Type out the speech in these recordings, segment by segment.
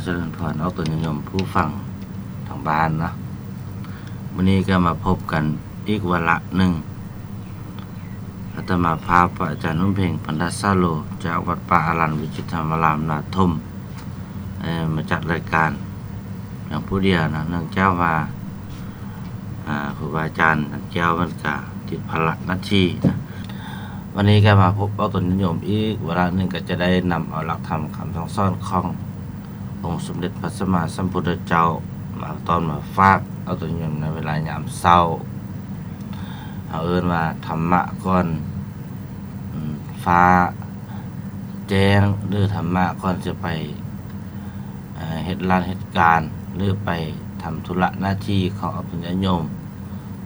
ຈະເລີນພອນອອກຕົນຍາດໂຍມຜູ້ຟັງທາງບ້ານເນາະ. ມື້ນີ້ກໍມາພົບກັນອີກວາລະໜຶ່ງ. ອາດຕະມາພາບພະອາຈານໜຸ່ມເພັງ ພັນທະສາໂລ ຈາກວັດປ່າອາລັນວິຈິດທຳມາລາມນາທົ່ມ ເອີ ມາຈັດລາຍການພຽງຜູ້ດຽວເນາະ, ເນື່ອງຈາກວ່າ ອາ ຄູບາອາຈານແກ້ວເພິ່ນກະຕິດພາລະໜ້າທີ່ນະ. ວັນນີ້ກໍມາພົບອອກຕົນຍາດໂຍມອີກວາລະໜຶ່ງ, ກໍຈະໄດ້ນຳເອົາຫຼັກທຳຄຳສັ່ງສອນຂອງອົງສົມເດັດພະສຳມາສຳພຸດທະເຈົ້າມາຕ້ອນມາຝາກອອກຕົນຍາດໂຍມໃນເວລາຍາມເຊົ້າ. ເຮົາເອີ້ນວ່າທຳມະກ່ອນ ອາ ຟ້າແຈ້ງ ຫຼື ທຳມະກ່ອນຈະໄປ ເຮັດລານເຮັດການ ຫຼື ໄປທຳທຸລະໜ້າທີ່ຂອງອອກຕົນຍາດໂຍມ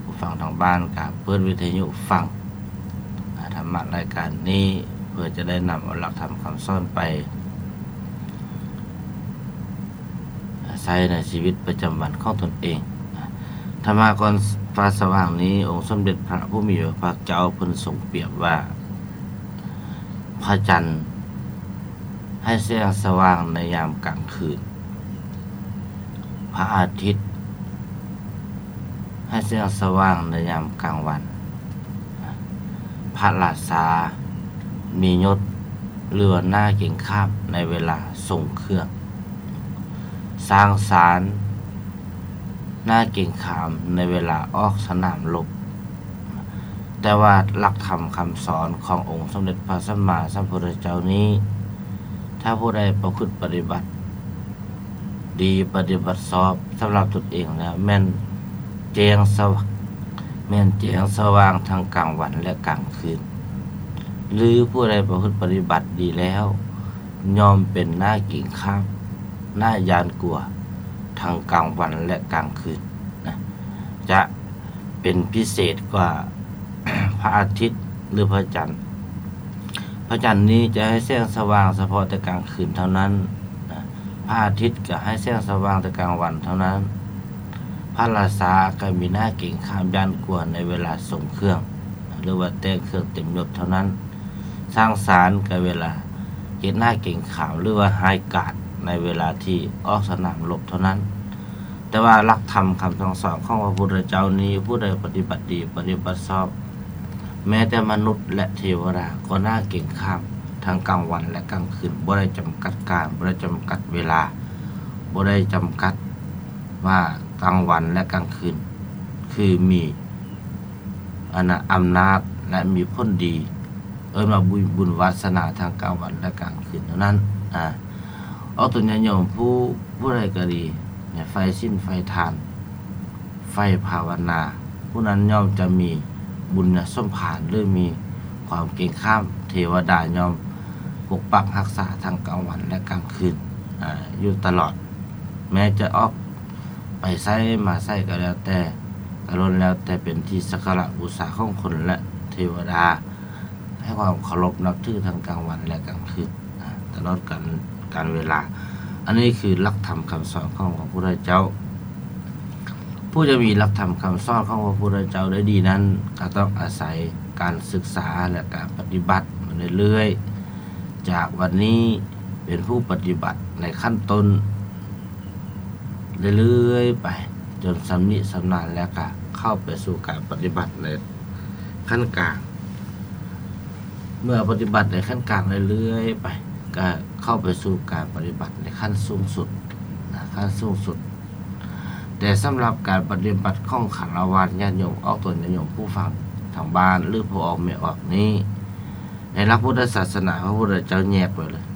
ຜູ້ຟັງທາງບ້ານ ກໍເປີດວິທະຍຸຟັງ ອາ ທຳມະລາຍການນີ້ ເພື່ອຈະໄດ້ນຳເອົາຫຼັກທຳຄຳສອນໄປໃຊ້ໃນຊີວິດປະຈຳວັນຂອງຕົນເອງ. ທຳມະກ່ອນຟ້າສະຫວ່າງນີ້ ອົງສົມເດັດພະຜູ້ມີພະພາກເຈົ້າເພິ່ນຊົງປຽບວ່າ ພະຈັນໃຫ້ແສງສະຫວ່າງໃນຍາມກາງຄືນ, ພະອາທິດໃຫ້ແສງສະຫວ່າງໃນຍາມກາງວັນ, ພະລາຊາມີຍົດ ຫຼືວ່າໜ້າເກງຂາມໃນເວລາຊົງເຄື່ອງ, ຊ້າງຊານໜ້າເກງຂາມໃນເວລາອອກສະໜາມລົບ. ແຕ່ວ່າຫຼັກທຳຄຳສອນຂອງອົງສົມເດັດພະສຳມາສຳພຸດທະເຈົ້ານີ້ ຖ້າຜູ້ໃດປະພຶດປະຕິບັດດີ ປະຕິບັດຊອບສຳລັບຕົນເອງແລ້ວ ແມ່ນແຈ້ງສະຫວ່າງ ແມ່ນແຈ້ງສະຫວ່າງທັງກາງວັນ ແລະ ກາງຄືນ, ຫຼື ຜູ້ໃດປະພຶດປະຕິບັດດີແລ້ວ ຍ່ອມເປັນໜ້າເກງຂາມ ໜ້າຢ້ານກົວ ທັງກາງວັນ ແລະ ກາງຄືນນະ, ຈະເປັນພິເສດກວ່າພະອາທິດ ຫຼື ພະຈັນ. ພະຈັນນີ້ຈະໃຫ້ແສງສະຫວ່າງສະເພາະແຕ່ກາງຄືນເທົ່ານັ້ນນະ, ພະອາທິດກໍໃຫ້ແສງສະຫວ່າງແຕ່ກາງວັນເທົ່ານັ້ນ, ພະລາຊາກໍມີໜ້າເກງຂາມຢ້ານກົວໃນເວລາຊົງເຄື່ອງ ຫຼືວ່າແຕ່ງເຄື່ອງເຕັມຍົດເທົ່ານັ້ນ. ຊ້າງຊານກໍເວລາເຮັດໜ້າເກງຂາມ ຫຼືວ່າຮ້າຍກາດໃນເວລາທີ່ອອກສະໜາມລົບເທົ່ານັ້ນ. ແຕ່ວ່າຫຼັກທຳຄຳສັ່ງສອນຂອງພະພຸດທະເຈົ້ານີ້ ຜູ້ໃດປະຕິບັດດີ ປະຕິບັດຊອບ ແມ້ແຕ່ມະນຸດ ແລະ ເທວະດາກໍໜ້າເກງຂາມທັງກາງວັນ ແລະ ກາງຄືນ, ບໍ່ໄດ້ຈຳກັດການ ບໍ່ໄດ້ຈຳກັດເວລາ ບໍ່ໄດ້ຈຳກັດວ່າກາງວັນ ແລະ ກາງຄືນ ຄືມີ ອັນນ່າ ອຳນາດ ແລະ ມີຜົນດີ ເອີ້ນວ່າບຸນ ບຸນວາສະໜາທັງກາງວັນ ແລະ ກາງຄືນເທົ່ານັ້ນ. ອາ ອອກຕົນຍາດໂຍມຜູ້ ຜູ້ໃດກໍດີ ໃນໃຝ່ສິນ ໃຝ່ທານ ໃຝ່ພາວະນາ ຜູ້ນັ້ນຍ່ອມຈະມີບຸນຍະສົມພານ ຫຼື ມີຄວາມເກງຂາມ, ເທວະດາຍ່ອມປົກປັກຮັກສາທັງກາງວັນ ແລະ ກາງຄືນ ອາ ຢູ່ຕະຫຼອດ. ແມ້ຈະອອກ ໄປໃສມາໃສກໍແລ້ວແຕ່ ກໍລ້ວນແລ້ວແຕ່ເປັນທີ່ສັກກາລະບູຊາຂອງຄົນ ແລະ ເທວະດາ ໃຫ້ຄວາມເຄົາລົບນັບຖືທັງກາງວັນ ແລະ ກາງຄືນ ຕະຫຼອດການ ການເວລາ. ອັນນີ້ຄືຫຼັກທຳຄຳສອນຂອງພະພຸດທະເຈົ້າ. ຜູ້ຈະມີຫຼັກທຳຄຳສອນຂອງພະພຸດທະເຈົ້າໄດ້ດີນັ້ນ ກໍຕ້ອງອາໄສການສຶກສາ ແລະ ການປະຕິບັດມາເລື້ອຍໆ ຈາກວັນນີ້ເປັນຜູ້ປະຕິບັດໃນຂັ້ນຕົ້ນ ເລື້ອຍໆໄປ ຈົນຊຳນິຊຳນານ ແລ້ວກະເຂົ້າໄປສູ່ການປະຕິບັດໃນຂັ້ນກາງ. ເມື່ອປະຕິບັດໃນຂັ້ນກາງເລື້ອຍໆໄປ ກະເຂົ້າໄປສູ່ການປະຕິບັດໃນຂັ້ນສູງສຸດນະ, ຂັ້ນສູງສຸດ. ແຕ່ສຳລັບການປະຕິບັດຂອງຄາລະວາດຍາດໂຍມ ອອກຕົນຍາດໂຍມຜູ້ຟັງທາງບ້ານ ຫຼື ພໍ່ອອກແມ່ອອກນີ້ ໃນຫຼັກພຸດທະສາສະໜາ ພະພຸດທະເຈົ້າແຍກໄວ້ເລີຍ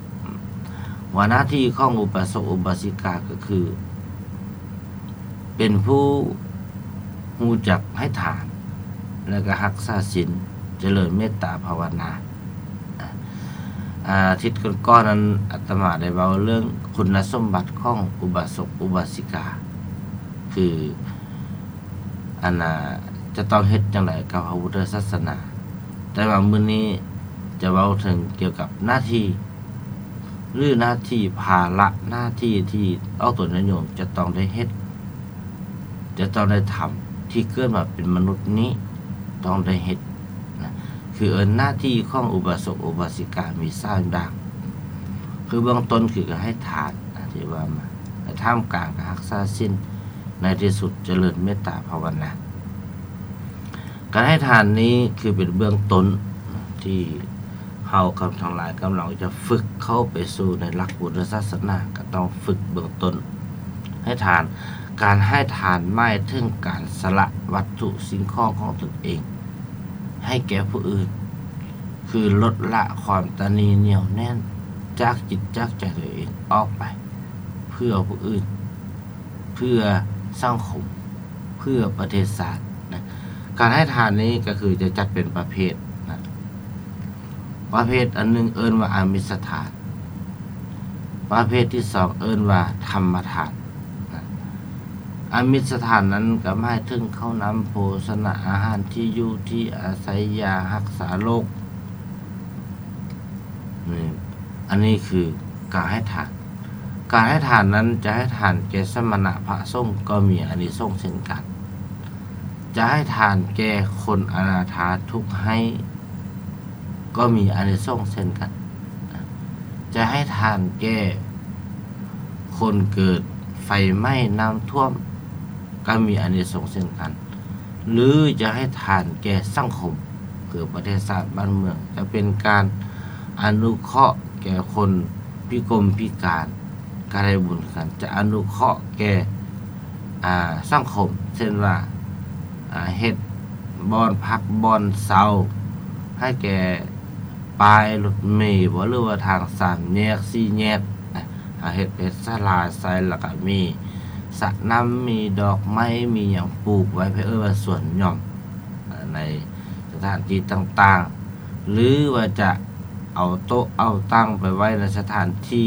ວ່າໜ້າທີ່ຂອງອຸບາສົກອຸບາສິກາກໍຄື ເປັນຜູ້ຮູ້ຈັກໃຫ້ທານ ແລະ ກໍຮັກສາສິນ ຈະເລີນເມດຕາພາວະນາ. ອາ ອາທິດກ່ອນໆນັ້ນ ອາດຕະມາໄດ້ເວົ້າເລື່ອງຄຸນນະສົມບັດຂອງອຸບາສົກອຸບາສິກາ ຄື ອັນນ່າ ຈະຕ້ອງເຮັດຈັ່ງໃດກັບພະພຸດທະສາສະໜາ. ແຕ່ວ່າມື້ນີ້ຈະເວົ້າເຖິງກ່ຽວກັບໜ້າທີ່ ຫຼື ໜ້າທີ່ ພາລະໜ້າທີ່ທີ່ອອກຕົນຍາດໂຍມຈະຕ້ອງໄດ້ເຮັດ ຈະຕ້ອງໄດ້ທຳ ທີ່ເກີດມາເປັນມະນຸດນີ້ຕ້ອງໄດ້ເຮັດນະ. ຄືເອີ້ນໜ້າທີ່ຂອງອຸບາສົກອຸບາສິກາມີສາມຢ່າງ ຄືເບື້ອງຕົ້ນຄືການໃຫ້ທານນະ, ທີ່ວ່າມາ ໃນທ່າມກາງການຮັກສາສິນ ໃນທີ່ສຸດຈະເລີນເມດຕາພາວະນາ. ການໃຫ້ທານນີ້ຄືເປັນເບື້ອງຕົ້ນທີ່ເຮົາກັບທັງຫຼາຍກຳລັງຈະຝຶກເຂົ້າໄປສູ່ໃນຫຼັກພຸດທະສາສະໜາ, ກໍຕ້ອງຝຶກເບື້ອງຕົ້ນໃຫ້ທານ. ການໃຫ້ທານໝາຍເຖິງການສະຫຼະວັດຖຸສິ່ງຂອງຂອງຕົນເອງໃຫ້ແກ່ຜູ້ອື່ນ, ຄືລົດລະຄວາມຕະໜີໜຽວແໜ້ນຈາກຈິດຈາກໃຈຕົວເອງອອກໄປ ເພື່ອຜູ້ອື່ນ, ເພື່ອສັງຄົມ, ເພື່ອປະເທດຊາດນະ. ການໃຫ້ທານນີ້ກໍຄືຈະຈັດເປັນປະເພດນະ. ປະເພດອັນໜຶ່ງເອີ້ນວ່າອາມິດສະທານ, ປະເພດທີສອງເອີ້ນວ່າທຳມະທານນະ. ອາມິດສະທານນັ້ນກໍໝາຍເຖິງເຂົ້ານ້ຳໂພຊະນະອາຫານ, ທີ່ຢູ່ທີ່ອາໄສ, ຢາຮັກສາໂລກ. ນີ້ ອັນນີ້ຄືການໃຫ້ທານ. ການໃຫ້ທານນັ້ນຈະໃຫ້ທານແກ່ສະມະນະພະສົງກໍມີອານິສົງເຊັ່ນກັນ, ຈະໃຫ້ທານແກ່ຄົນອະນາຖາທຸກໄຮ້ກໍມີອານິສົງເຊັ່ນກັນ, ຈະໃຫ້ທານແກ່ຄົນເກີດໄຟໄໝ້ນ້ຳຖ້ວມກໍມີອານິສົງເຊັ່ນກັນ. ຫຼືຈະໃຫ້ທານແກ່ສັງຄົມ ຄືປະເທດຊາດບ້ານເມືອງ, ຈະເປັນການອະນຸເຄາະແກ່ຄົນພິກົມພິການກໍໄດ້ບຸນຄືກັນ, ຈະອະນຸເຄາະແກ່ ອາ ສັງຄົມ ເຊັ່ນວ່າ ອາ ເຮັດບ່ອນພັກບ່ອນເຊົາໃຫ້ແກ່ປ້າຍລົດເມບໍ ຫຼືວ່າທາງສາມແຍກສີ່ແຍກນະ, ເຮັດເປັນສາລາໃສ່ ແລ້ວກໍມີສະນ້ຳ ມີດອກໄມ້ ມີຫຍັງປູກໄວ້ ເພິ່ນເອີ້ນວ່າສວນຫຍ່ອມ ໃນສະຖານທີ່ຕ່າງໆ ຫຼືວ່າຈະເອົາໂຕະເອົາຕັ່ງໄປໄວ້ໃນສະຖານທີ່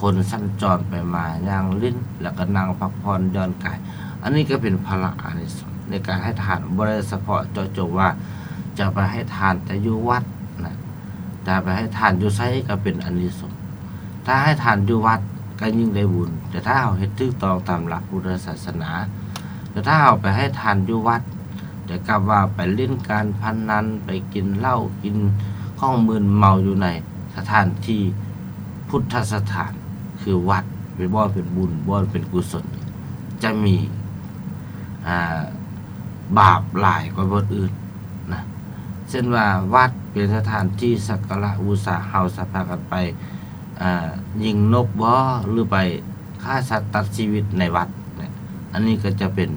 ຄົນສັນຈອນໄປມາຍ່າງຫຼິ້ນ ແລ້ວກໍນັ່ງພັກຜ່ອນຢ່ອນກາຍ. ອັນນີ້ກໍເປັນພະລະອານິສົງໃນການໃຫ້ທານ, ບໍ່ໄດ້ສະເພາະເຈາະຈົງວ່າຈະໄປໃຫ້ທານແຕ່ຢູ່ວັດນະ, ຈະໄປໃຫ້ທານຢູ່ໃສກໍເປັນອານິສົງ. ຖ້າໃຫ້ທານຢູ່ວັດກໍຍິ່ງໄດ້ບຸນ, ແຕ່ຖ້າເຮົາເຮັດຖືກຕ້ອງຕາມຫຼັກພຸດທະສາສະໜາ, ແຕ່ຖ້າເຮົາໄປໃຫ້ທານຢູ່ວັດ ແຕ່ກັບວ່າໄປຫຼິ້ນການພະນັນ, ໄປກິນເຫຼົ້າ ກິນຂອງມຶນເມົາຢູ່ໃນສະຖານທີ່ພຸດທະສະຖານ ຄືວັດ, ເປັນບ່ອນເປັນບຸນ, ບ່ອນເປັນກຸສົນ, ຈະມີ ອາ ບາບຫຼາຍກວ່າບ່ອນອື່ນນະ. ເຊັ່ນວ່າວັດເປັນສະຖານທີ່ສັກກາລະບູຊາ, ເຮົາສາມາດກັນໄປ ອາ ຍິງນົກບໍ ຫຼືໄປຂ້າສັດຕັດຊີວິດໃນວັດນະ, ອັນນີ້ກໍຈະເປັນ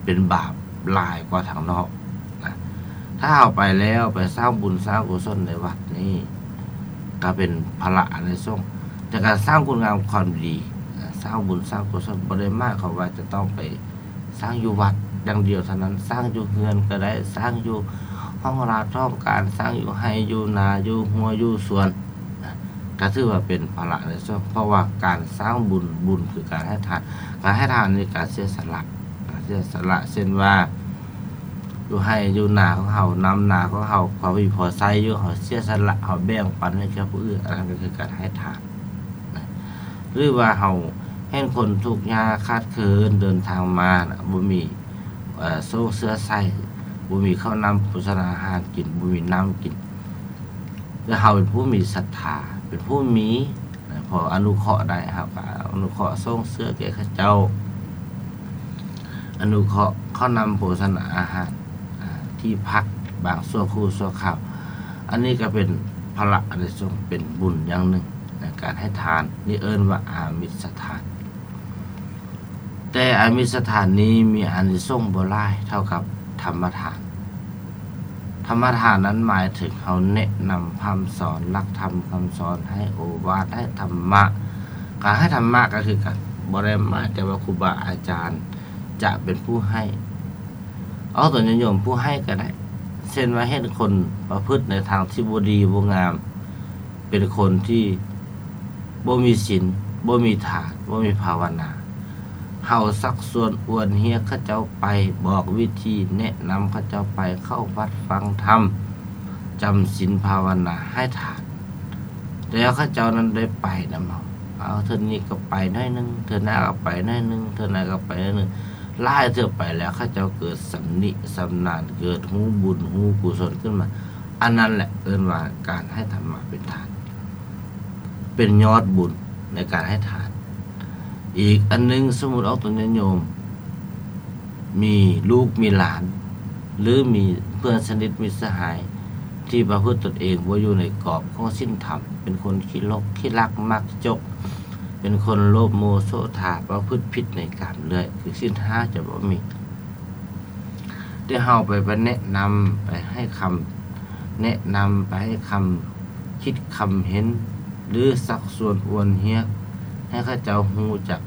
ເປັນບາບຫຼາຍກວ່າທາງນອກນະ. ຖ້າເຮົາໄປແລ້ວໄປສ້າງບຸນສ້າງກຸສົນໃນວັດນີ້ ກໍເປັນພະລະອານິສົງຈາກການສ້າງຄຸນງາມຄວາມດີ. ສ້າງບຸນສ້າງກຸສົນບໍ່ໄດ້ໝາຍຄວາມວ່າຈະຕ້ອງໄປ ສ້າງຢູ່ວັດຢ່າງດຽວເທົ່ານັ້ນ, ສ້າງຢູ່ເຮືອນກໍໄດ້, ສ້າງຢູ່ຫ້ອງລາດຫ້ອງການ, ສ້າງຢູ່ໄຮ່ຢູ່ນາ, ຢູ່ຮົ້ວຢູ່ສວນນະ, ກໍຖືວ່າເປັນພະລະໃນສ່ວນ, ເພາະວ່າການສ້າງບຸນ, ບຸນຄືການໃຫ້ທານ, ການໃຫ້ທານນີ້ການເສຍສະຫຼະ, ການເສຍສະຫຼະ, ເຊັ່ນວ່າ ຢູ່ໄຮ່ຢູ່ນາຂອງເຮົາ, ນຳນາຂອງເຮົາ, ພໍມີພໍໃຊ້ຢູ່, ເຮົາເສຍສະຫຼະ, ເຮົາແບ່ງປັນໃຫ້ແກ່ຜູ້ອື່ນ, ອັນນັ້ນກໍຄືການໃຫ້ທານນະ. ຫຼືວ່າເຮົາເຫັນຄົນທຸກຍາກຂາດເຂີນເດີນທາງມານະ, ບໍ່ມີ ເອີ ໂສ້ງເສື້ອໃສ່, ບໍ່ມີເຂົ້ານ້ຳໂພຊະນາອາຫານກິນ, ບໍ່ມີນ້ຳກິນ, ແຕ່ເຮົາເປັນຜູ້ມີສັດທາ, ເປັນຜູ້ມີນະ, ພໍອະນຸເຄາະໄດ້, ເຮົາກໍອະນຸເຄາະໂສ້ງເສື້ອແກ່ເຂົາເຈົ້າ, ອະນຸເຄາະເຂົ້ານ້ຳໂພຊະນາອາຫານ, ອາ, ທີ່ພັກບາງຊົ່ວຄູ່ຊົ່ວຄາວ. ອັນນີ້ກໍເປັນພະລະອານິສົງ, ເປັນບຸນຢ່າງໜຶ່ງໃນການໃຫ້ທານ. ນີ້ເອີ້ນວ່າອາມິດສະທານ. ແຕ່ອາມິດສະທານນີ້ມີອານິສົງບໍ່ຫຼາຍເທົ່າກັບທຳມະທານ. ທຳມະທານນັ້ນໝາຍເຖິງເຮົາແນະນຳຄຳສອນ, ຫຼັກທຳຄຳສອນ, ໃຫ້ໂອວາດ, ໃຫ້ທຳມະ. ການໃຫ້ທຳມະກໍຄືກັນ, ບໍ່ໄດ້ໝາຍແຕ່ວ່າຄູບາອາຈານຈະເປັນຜູ້ໃຫ້. ເອົາຕົນຍາດໂຍມຜູ້ໃຫ້ກໍໄດ້. ເຊັ່ນວ່າເຫັນຄົນປະພຶດໃນທາງທີ່ບໍ່ດີບໍ່ງາມ, ເປັນຄົນທີ່ບໍ່ມີສິນ, ບໍ່ມີທານ, ບໍ່ມີພາວະນາ. ເຮົາຊັກຊວນອວນຮຽກເຂົາເຈົ້າໄປ, ບອກວິທີ, ແນະນຳເຂົາເຈົ້າໄປເຂົ້າວັດຟັງທຳ, ຈຳສິນພາວະນາ, ໃຫ້ທານ. ແຕ່ເຂົາເຈົ້ານັ້ນໄດ້ໄປນຳເຮົາ. ເອົາ ເທື່ອນີ້ກໍໄປໜ້ອຍໜຶ່ງ, ເທື່ອໜ້າກໍໄປໜ້ອຍໜຶ່ງ, ເທື່ອໜ້າກໍໄປໜ້ອຍໜຶ່ງ. ຫຼາຍເທື່ອໄປແລ້ວ ເຂົາເຈົ້າເກີດຊຳນິຊຳນານ, ເກີດຮູ້ບຸນຮູ້ກຸສົນຂຶ້ນມາ. ອັນນັ້ນແຫຼະເອີ້ນວ່າການໃຫ້ທຳມະເປັນທານ, ເປັນຍອດບຸນໃນການໃຫ້ທານ. ອີກອັນໜຶ່ງ, ສົມມຸດອອກຕົນຍາດໂຍມ ມີລູກມີຫຼານ ຫຼື ມີເພື່ອນສະໜິດມິດສະຫາຍ ທີ່ປະພຶດຕົນເອງບໍ່ຢູ່ໃນກອບຂອງສິນທຳ, ເປັນຄົນຂີ້ຫຼົກຂີ້ລັກມັກຈົກ, ເປັນຄົນໂລບໂມໂສທາ, ປະພຶດຜິດໃນກາມເລື້ອຍ, ຄືສິນຫ້າຈະບໍ່ມີ. ແຕ່ເຮົາໄປ ໄປແນະນຳ, ໄປໃຫ້ຄຳແນະນຳ, ໄປໃຫ້ຄຳຄິດຄຳເຫັນ ຫຼື ຊັກຊວນອວນຮຽກ ໃຫ້ເຂົາເຈົ້າຮູ້ຈັກ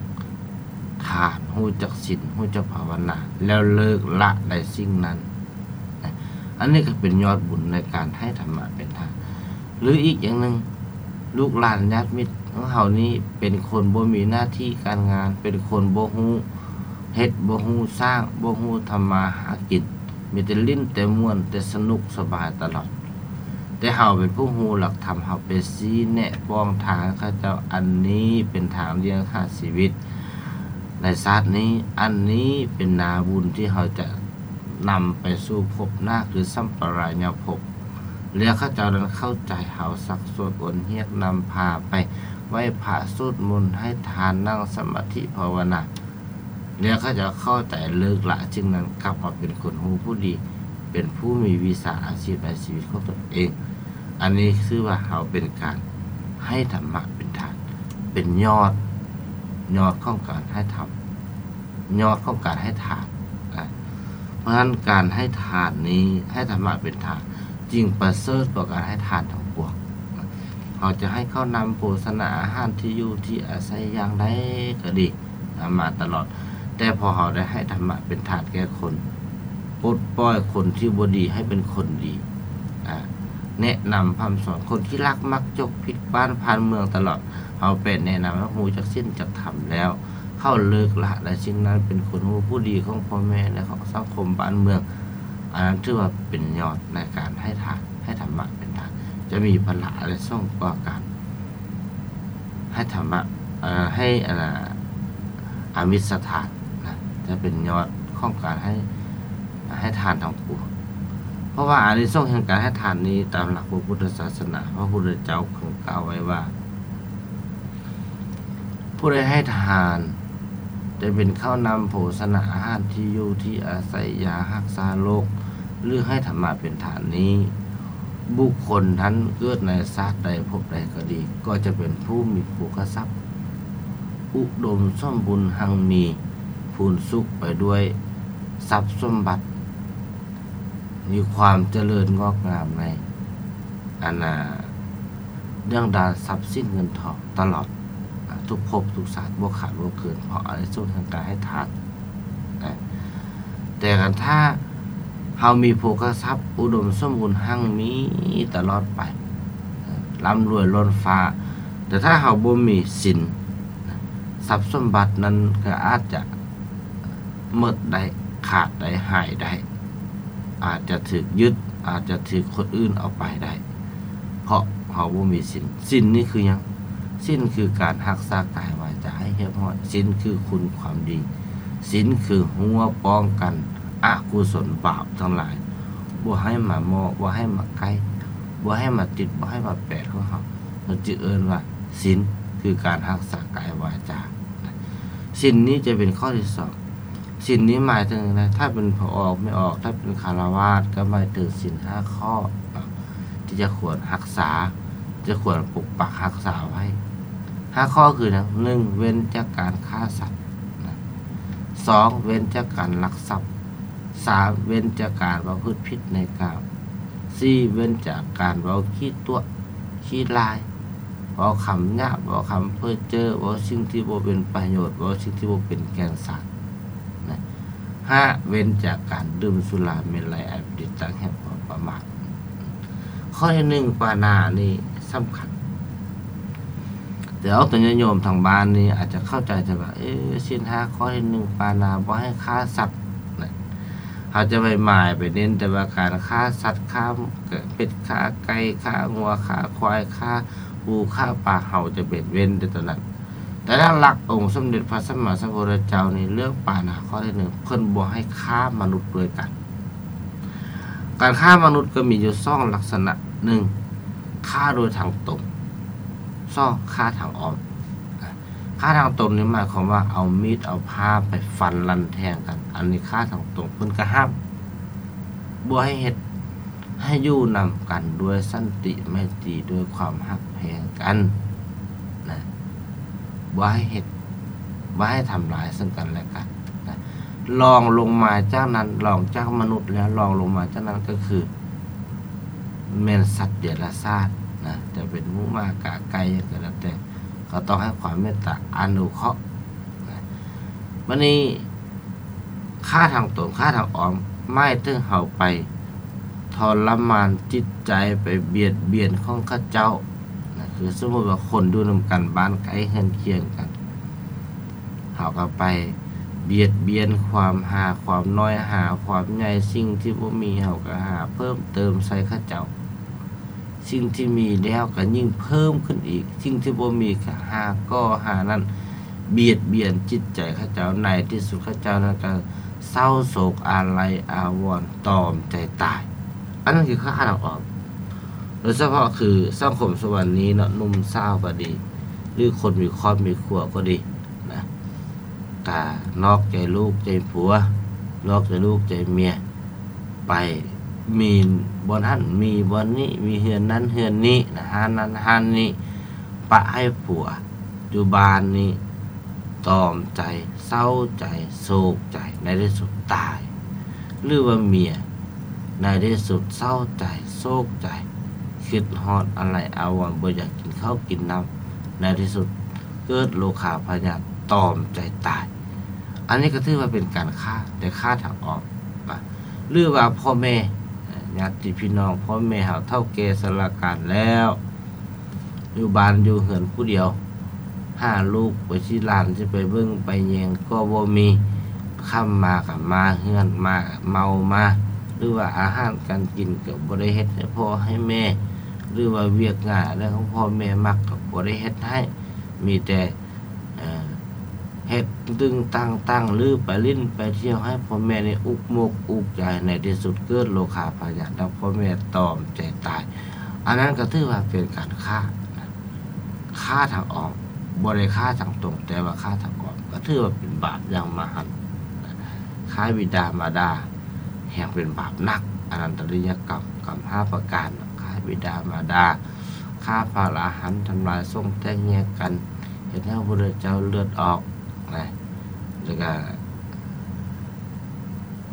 ທານ, ຮູ້ຈັກສິນ, ຮູ້ຈັກພາວະນາ ແລ້ວເລີກລະໄດ້ສິ່ງນັ້ນ. ອັນນີ້ກໍເປັນຍອດບຸນໃນການໃຫ້ທຳມະເປັນທານ. ຫຼື ອີກຢ່າງໜຶ່ງ, ລູກຫຼານຍາດມິດຂອງເຮົານີ້ເປັນຄົນບໍ່ມີໜ້າທີ່ການງານ, ເປັນຄົນບໍ່ຮູ້ເຮັດ, ບໍ່ຮູ້ສ້າງ, ບໍ່ຮູ້ທຳມາຫາກິນ, ມີແຕ່ຫຼິ້ນແຕ່ມ່ວນ, ແຕ່ສະໜຸກສະບາຍຕະຫຼອດ. ແຕ່ເຮົາເປັນຜູ້ຮູ້ຫຼັກທຳ, ເຮົາໄປຊີ້ແນະປ້ອງທາງໃຫ້ເຂົາເຈົ້າ, ອັນນີ້ເປັນທາງລ້ຽງຫາຊີວິດໃນຊາດນີ້, ອັນນີ້ເປັນນາບຸນທີ່ເຮົາຈະນຳໄປສູ່ພົບໜ້າ ຄືສຳປະລາຍະພົບ. ແລ້ວເຂົາເຈົ້ານັ້ນເຂົ້າໃຈເຮົາ, ຊັກຊວນອວນຮຽກ, ນຳພາໄປໄຫວ້ພະ, ສວດມົນ, ໃຫ້ທານ, ນັ່ງສະມາທິພາວະນາ, ແລ້ວເຂົາເຈົ້າເຂົ້າໃຈ, ເລີກລະສິ່ງນັ້ນ, ກັບມາເປັນຄົນຮູ້ຜູ້ດີ, ເປັນຜູ້ມີວິຊາອາຊີບໃນຊີວິດຂອງຕົນເອງ. ອັນນີ້ຊື່ວ່າເຮົາເປັນການໃຫ້ທຳມະເປັນທານ, ເປັນຍອດ, ຍອດຂອງການໃຫ້ທຳ, ຍອດຂອງການໃຫ້ທານ. ອາ ເພາະສະນັ້ນ ການໃຫ້ທານນີ້, ໃຫ້ທຳມະເປັນທານ, ຈຶ່ງປະເສີດກວ່າການໃຫ້ທານທັງປວງ. ເຮົາຈະໃຫ້ເຂົ້ານ້ຳໂພຊະນາອາຫານ, ທີ່ຢູ່ທີ່ອາໄສຢ່າງໃດກໍດີ, ນຳມາຕະຫຼອດ. ແຕ່ພໍເຮົາໄດ້ໃຫ້ທຳມະເປັນທານແກ່ຄົນ, ປົດປ່ອຍຄົນທີ່ບໍ່ດີໃຫ້ເປັນຄົນດີ, ອາ ແນະນຳພະຮ່ຳສອນຄົນທີ່ລັກມັກຈົກ, ຜິດບ້ານຜ່ານເມືອງຕະຫຼອດ, ເຮົາໄປແນະນຳໃຫ້ຮູ້ຈັກສິນຈັກທຳແລ້ວ, ເຂົາເລີກລະໄດ້ສິ່ງນັ້ນ, ເປັນຄົນຮູ້ຜູ້ດີຂອງພໍ່ແມ່ ແລະ ຂອງສັງຄົມບ້ານເມືອງ. ອັນນັ້ນຖືວ່າເປັນຍອດໃນການໃຫ້ທານ, ໃຫ້ທຳມະເປັນທານ, ຈະມີພະລະອານິສົງກວ່າການໃຫ້ທຳມະ, ເອີ ໃຫ້ ອັນນ່າ ອາມິດສະທານນະ, ຈະເປັນຍອດຂອງການໃຫ້, ໃຫ້ທານທັງປວງ. ເພາະວ່າອານິສົງແຫ່ງການໃຫ້ທານນີ້, ຕາມຫຼັກພະພຸດທະສາສະໜາ, ພະພຸດທະເຈົ້າເພິ່ນກ່າວໄວ້ວ່າ ຜູ້ໃດໃຫ້ທານ ຈະເປັນເຂົ້ານ້ຳໂພຊະນາອາຫານ, ທີ່ຢູ່ທີ່ອາໄສ, ຢາຮັກສາໂລກ ຫຼື ໃຫ້ທຳມະເປັນທານນີ້, ບຸກຄົນນັ້ນເກີດໃນຊາດໃດພົບໃດກໍດີ, ກໍຈະເປັນຜູ້ມີໂພຄະຊັບ, ອຸດົມສົມບູນຮັ່ງມີ, ພູນສຸກໄປດ້ວຍຊັບສົມບັດ, ມີຄວາມຈະເລີນງອກງາມໃນ ອັນນ່າ ເລື່ອງດ້ານຊັບສິນເງິນທອງຕະຫຼອດ ອາ ທຸກພົບທຸກຊາດ ບໍ່ຂາດບໍ່ເກີນ ເພາະອານິສົງແຫ່ງການໃຫ້ທານນະ. ແຕ່ຄັນຖ້າເຮົາມີໂພຄະຊັບ ອຸດົມສົມບູນຮັ່ງມີຕະຫຼອດໄປ ອາ ລ່ຳລວຍລົ້ນຟ້າ, ແຕ່ຖ້າເຮົາບໍ່ມີສິນ ຊັບສົມບັດນັ້ນກໍອາດຈະ ໝົດໄດ້, ຂາດໄດ້, ຫາຍໄດ້, ອາດຈະຖືກຍຶດ, ອາດຈະຖືກຄົນອື່ນເອົາໄປໄດ້, ເພາະເຮົາບໍ່ມີສິນ. ສິນນີ້ຄືຫຍັງ? ສິນຄືການຮັກສາກາຍວາຈາໃຫ້ຮຽບຮ້ອຍ. ສິນຄືຄຸນຄວາມດີ. ສິນຄືຮົ້ວປ້ອງກັນອະກຸສົນບາບທັງຫຼາຍ, ບໍ່ໃຫ້ມາເໝາະ, ບໍ່ໃຫ້ມາໃກ້, ບໍ່ໃຫ້ມາຕິດ, ບໍ່ໃຫ້ມາແປດຂອງເຮົາ. ເຮົາຈຶ່ງເອີ້ນວ່າສິນ ຄືການຮັກສາກາຍວາຈາ. ສິນນີ້ຈະເປັນຂໍ້ທີສອງ. ສິນນີ້ໝາຍເຖິງໃດ? ຖ້າເປັນພໍ່ອອກແມ່ອອກ, ຖ້າເປັນຄາລະວາດ ກໍໝາຍເຖິງສິນຫ້າຂໍ້ເນາະ ທີ່ຈະຄວນຮັກສາ, ຈະຄວນປົກປັກຮັກສາໄວ້. ຫ້າຂໍ້ຄືຫຍັງ? ໜຶ່ງ ເວັ້ນຈາກການຂ້າສັດນະ. ສອງ ເວັ້ນຈາກການລັກຊັບ. ສາມ ເວັ້ນຈາກການປະພຶດຜິດໃນກາມ. ສີ່ ເວັ້ນຈາກການເວົ້າຂີ້ຕົວະ ຂີ້ລາຍ, ເວົ້າຄຳຫຍາບ, ເວົ້າຄຳເພີ້ເຈີ້, ເວົ້າສິ່ງທີ່ບໍ່ເປັນປະໂຫຍດ, ເວົ້າສິ່ງທີ່ບໍ່ເປັນແກ່ນສານນະ. ຫ້າ ເວັ້ນຈາກການດື່ມສຸລາເມໄລ ອັນເປັນທີ່ຕັ້ງແຫ່ງຄວາມປະໝາດ. ຂໍ້ທີໜຶ່ງ ປານານີ້ສຳຄັນ. ແຕ່ອອກຕົນຍາດໂຍມທາງບ້ານນີ້ອາດຈະເຂົ້າໃຈແຕ່ວ່າ ເອ ສິນຫ້າຂໍ້ທີໜຶ່ງ ປານາ ບໍ່ໃຫ້ຂ້າສັດນະ. ເຮົາຈະໄປໝາຍໄປເນັ້ນແຕ່ວ່າການຂ້າສັດ, ຂ້າເປັດ, ຂ້າໄກ່, ຂ້າງົວ, ຂ້າຄວາຍ, ຂ້າປູ, ຂ້າປາ, ເຮົາຈະໄປເວັ້ນແຕ່ຕົວນັ້ນ. ແຕ່ຫຼັກໆ ອົງສົມເດັດພະສຳມາສຳພຸດທະເຈົ້ານີ້ ເລື່ອງປານາຂໍ້ທີໜຶ່ງ ເພິ່ນບໍ່ໃຫ້ຂ້າມະນຸດດ້ວຍກັນ. ການຂ້າມະນຸດກໍມີຢູ່ສອງລັກສະນະ, ໜຶ່ງ ຂ້າໂດຍທາງຕົງ, ສອງ ຂ້າທາງອ້ອມ. ຂ້າທາງຕົງນີ້ໝາຍຄວາມວ່າເອົາມີດເອົາພ້າໄປຟັນລັນແທງກັນ, ອັນນີ້ຂ້າທາງຕົງເພິ່ນກໍຫ້າມ ບໍ່ໃຫ້ເຮັດ, ໃຫ້ຢູ່ນຳກັນດ້ວຍສັນຕິໄມຕີ ດ້ວຍຄວາມຮັກແພງກັນນະ, ບໍ່ໃຫ້ເຮັດ, ບໍ່ໃຫ້ທຳລາຍເຊິ່ງກັນແລະກັນນະ. ລອງລົງມາຈາກນັ້ນ, ລອງຈາກມະນຸດແລ້ວ ລອງລົງມາຈາກນັ້ນກໍຄືແມ່ນສັດເດຍລະສານນະ, ຈະເປັນໝູໝາກາໄກ່ຫຍັງກໍແລ້ວແຕ່ ກໍຕ້ອງໃຫ້ຄວາມເມດຕາອະນຸເຄາະນະ. ບັດນີ້ ຂ້າທາງຕົງ ຂ້າທາງອ້ອມ ໝາຍເຖິງເຮົາໄປທໍລະມານຈິດໃຈ ໄປບຽດບຽນຂອງເຂົາເຈົ້ານະ. ຄືສົມມຸດວ່າຄົນຢູ່ນຳກັນ ບ້ານໃກ້ເຮືອນຄຽງກັນ ເຮົາກໍໄປບຽດບຽນຄວາມ ຫາຄວາມນ້ອຍ ຫາຄວາມໃຫຍ່, ສິ່ງທີ່ບໍ່ມີເຮົາກໍຫາເພີ່ມເຕີມໃສ່ເຂົາເຈົ້າ. ສິ່ງທີ່ມີແລ້ວກໍຍິ່ງເພີ່ມຂຶ້ນອີກ, ສິ່ງທີ່ບໍ່ມີກໍຫາກໍ່ຫານັ້ນ ບຽດບຽນຈິດໃຈເຂົາເຈົ້າ, ໃນທີ່ສຸດເຂົາເຈົ້ານັ້ນກໍເສົ້າໂສກອາໄລອາວອນ ຕອມໃຈຕາຍ. ອັນນັ້ນຄືຂ້າທາງອອກ, ໂດຍສະເພາະຄືສັງຄົມສະບັບນີ້ເນາະ, ໜຸ່ມສາວກໍດີ ຫຼືຄົນມີຄອບມີຄົວກໍດີ ນະ, ກະນອກໃຈລູກໃຈຜົວ ນອກໃຈລູກໃຈເມຍ ໄປມີບ່ອນຫັ້ນມີບ່ອນນີ້ ມີເຮືອນນັ້ນເຮືອນນີ້ນະ, ຮ້ານນັ້ນຮ້ານນີ້ ປະໃຫ້ຜົວຢູ່ບ້ານນີ້ ຕອມໃຈ ເສົ້າໃຈ ໂສກໃຈ ໃນທີ່ສຸດຕາຍ. ຫຼືວ່າເມຍ ໃນທີ່ສຸດເສົ້າໃຈ ໂສກໃຈ ຄິດຮອດອາໄລອາວອນ ບໍ່ຢາກກິນເຂົ້າກິນນ້ຳ ໃນທີ່ສຸດເກີດໂລຄາພະຍາດ ຕອມໃຈຕາຍ. ອັນນີ້ກໍຖືວ່າເປັນການຂ້າ ແຕ່ຂ້າທາງອອກນະ. ຫຼືວ່າພໍ່ແມ່ ຍາດຕິພີ່ນ້ອງ ພໍ່ແມ່ເຮົາເຖົ້າແກ່ຊະລາການແລ້ວ ຢູ່ບ້ານຢູ່ເຮືອນຜູ້ດຽວ ຫາລູກໄປຊີ້ຫຼານຊິໄປເບິ່ງໄປແຍງກໍບໍ່ມີ, ຄ່ຳມາກໍມາເຮືອນ ມາເມົາມາ ຫຼືວ່າອາຫານການກິນກໍບໍ່ໄດ້ເຮັດໃຫ້ພໍ່ໃຫ້ແມ່ ຫຼືວ່າວຽກງານອັນໃດຂອງພໍ່ແມ່ມັກກໍບໍ່ໄດ້ເຮັດໃຫ້, ມີແຕ່ ເອີ ເຮັດຕຶງຕັ້ງຕັ້ງ ຫຼືໄປຫຼິ້ນໄປທ່ຽວ ໃຫ້ພໍ່ແມ່ນີ້ອຸກມົກອຸກໃຈ, ໃນທີ່ສຸດເກີດໂລຄາພະຍາດ ແລ້ວພໍ່ແມ່ຕອມໃຈຕາຍ. ອັນນັ້ນກໍຖືວ່າເປັນການຂ້ານະ, ຂ້າທາງອ້ອມ, ບໍ່ໄດ້ຂ້າທາງຕົງ ແຕ່ວ່າຂ້າທາງອ້ອມ ກໍຖືວ່າເປັນບາບຢ່າງມະຫັນນະ. ຂ້າບິດາມາດາແຮ່ງເປັນບາບໜັກ, ອະນັນຕະລິຍະກຳ ກຳຫ້າປະການ, ຂ້າບິດາມາດາ, ຂ້າພະອະລະຫັນ, ທຳລາຍສົງແຕກແຍກກັນ, ເຮັດໃຫ້ພະພຸດທະເຈົ້າເລືອດອອກນະ, ແລ້ວກະ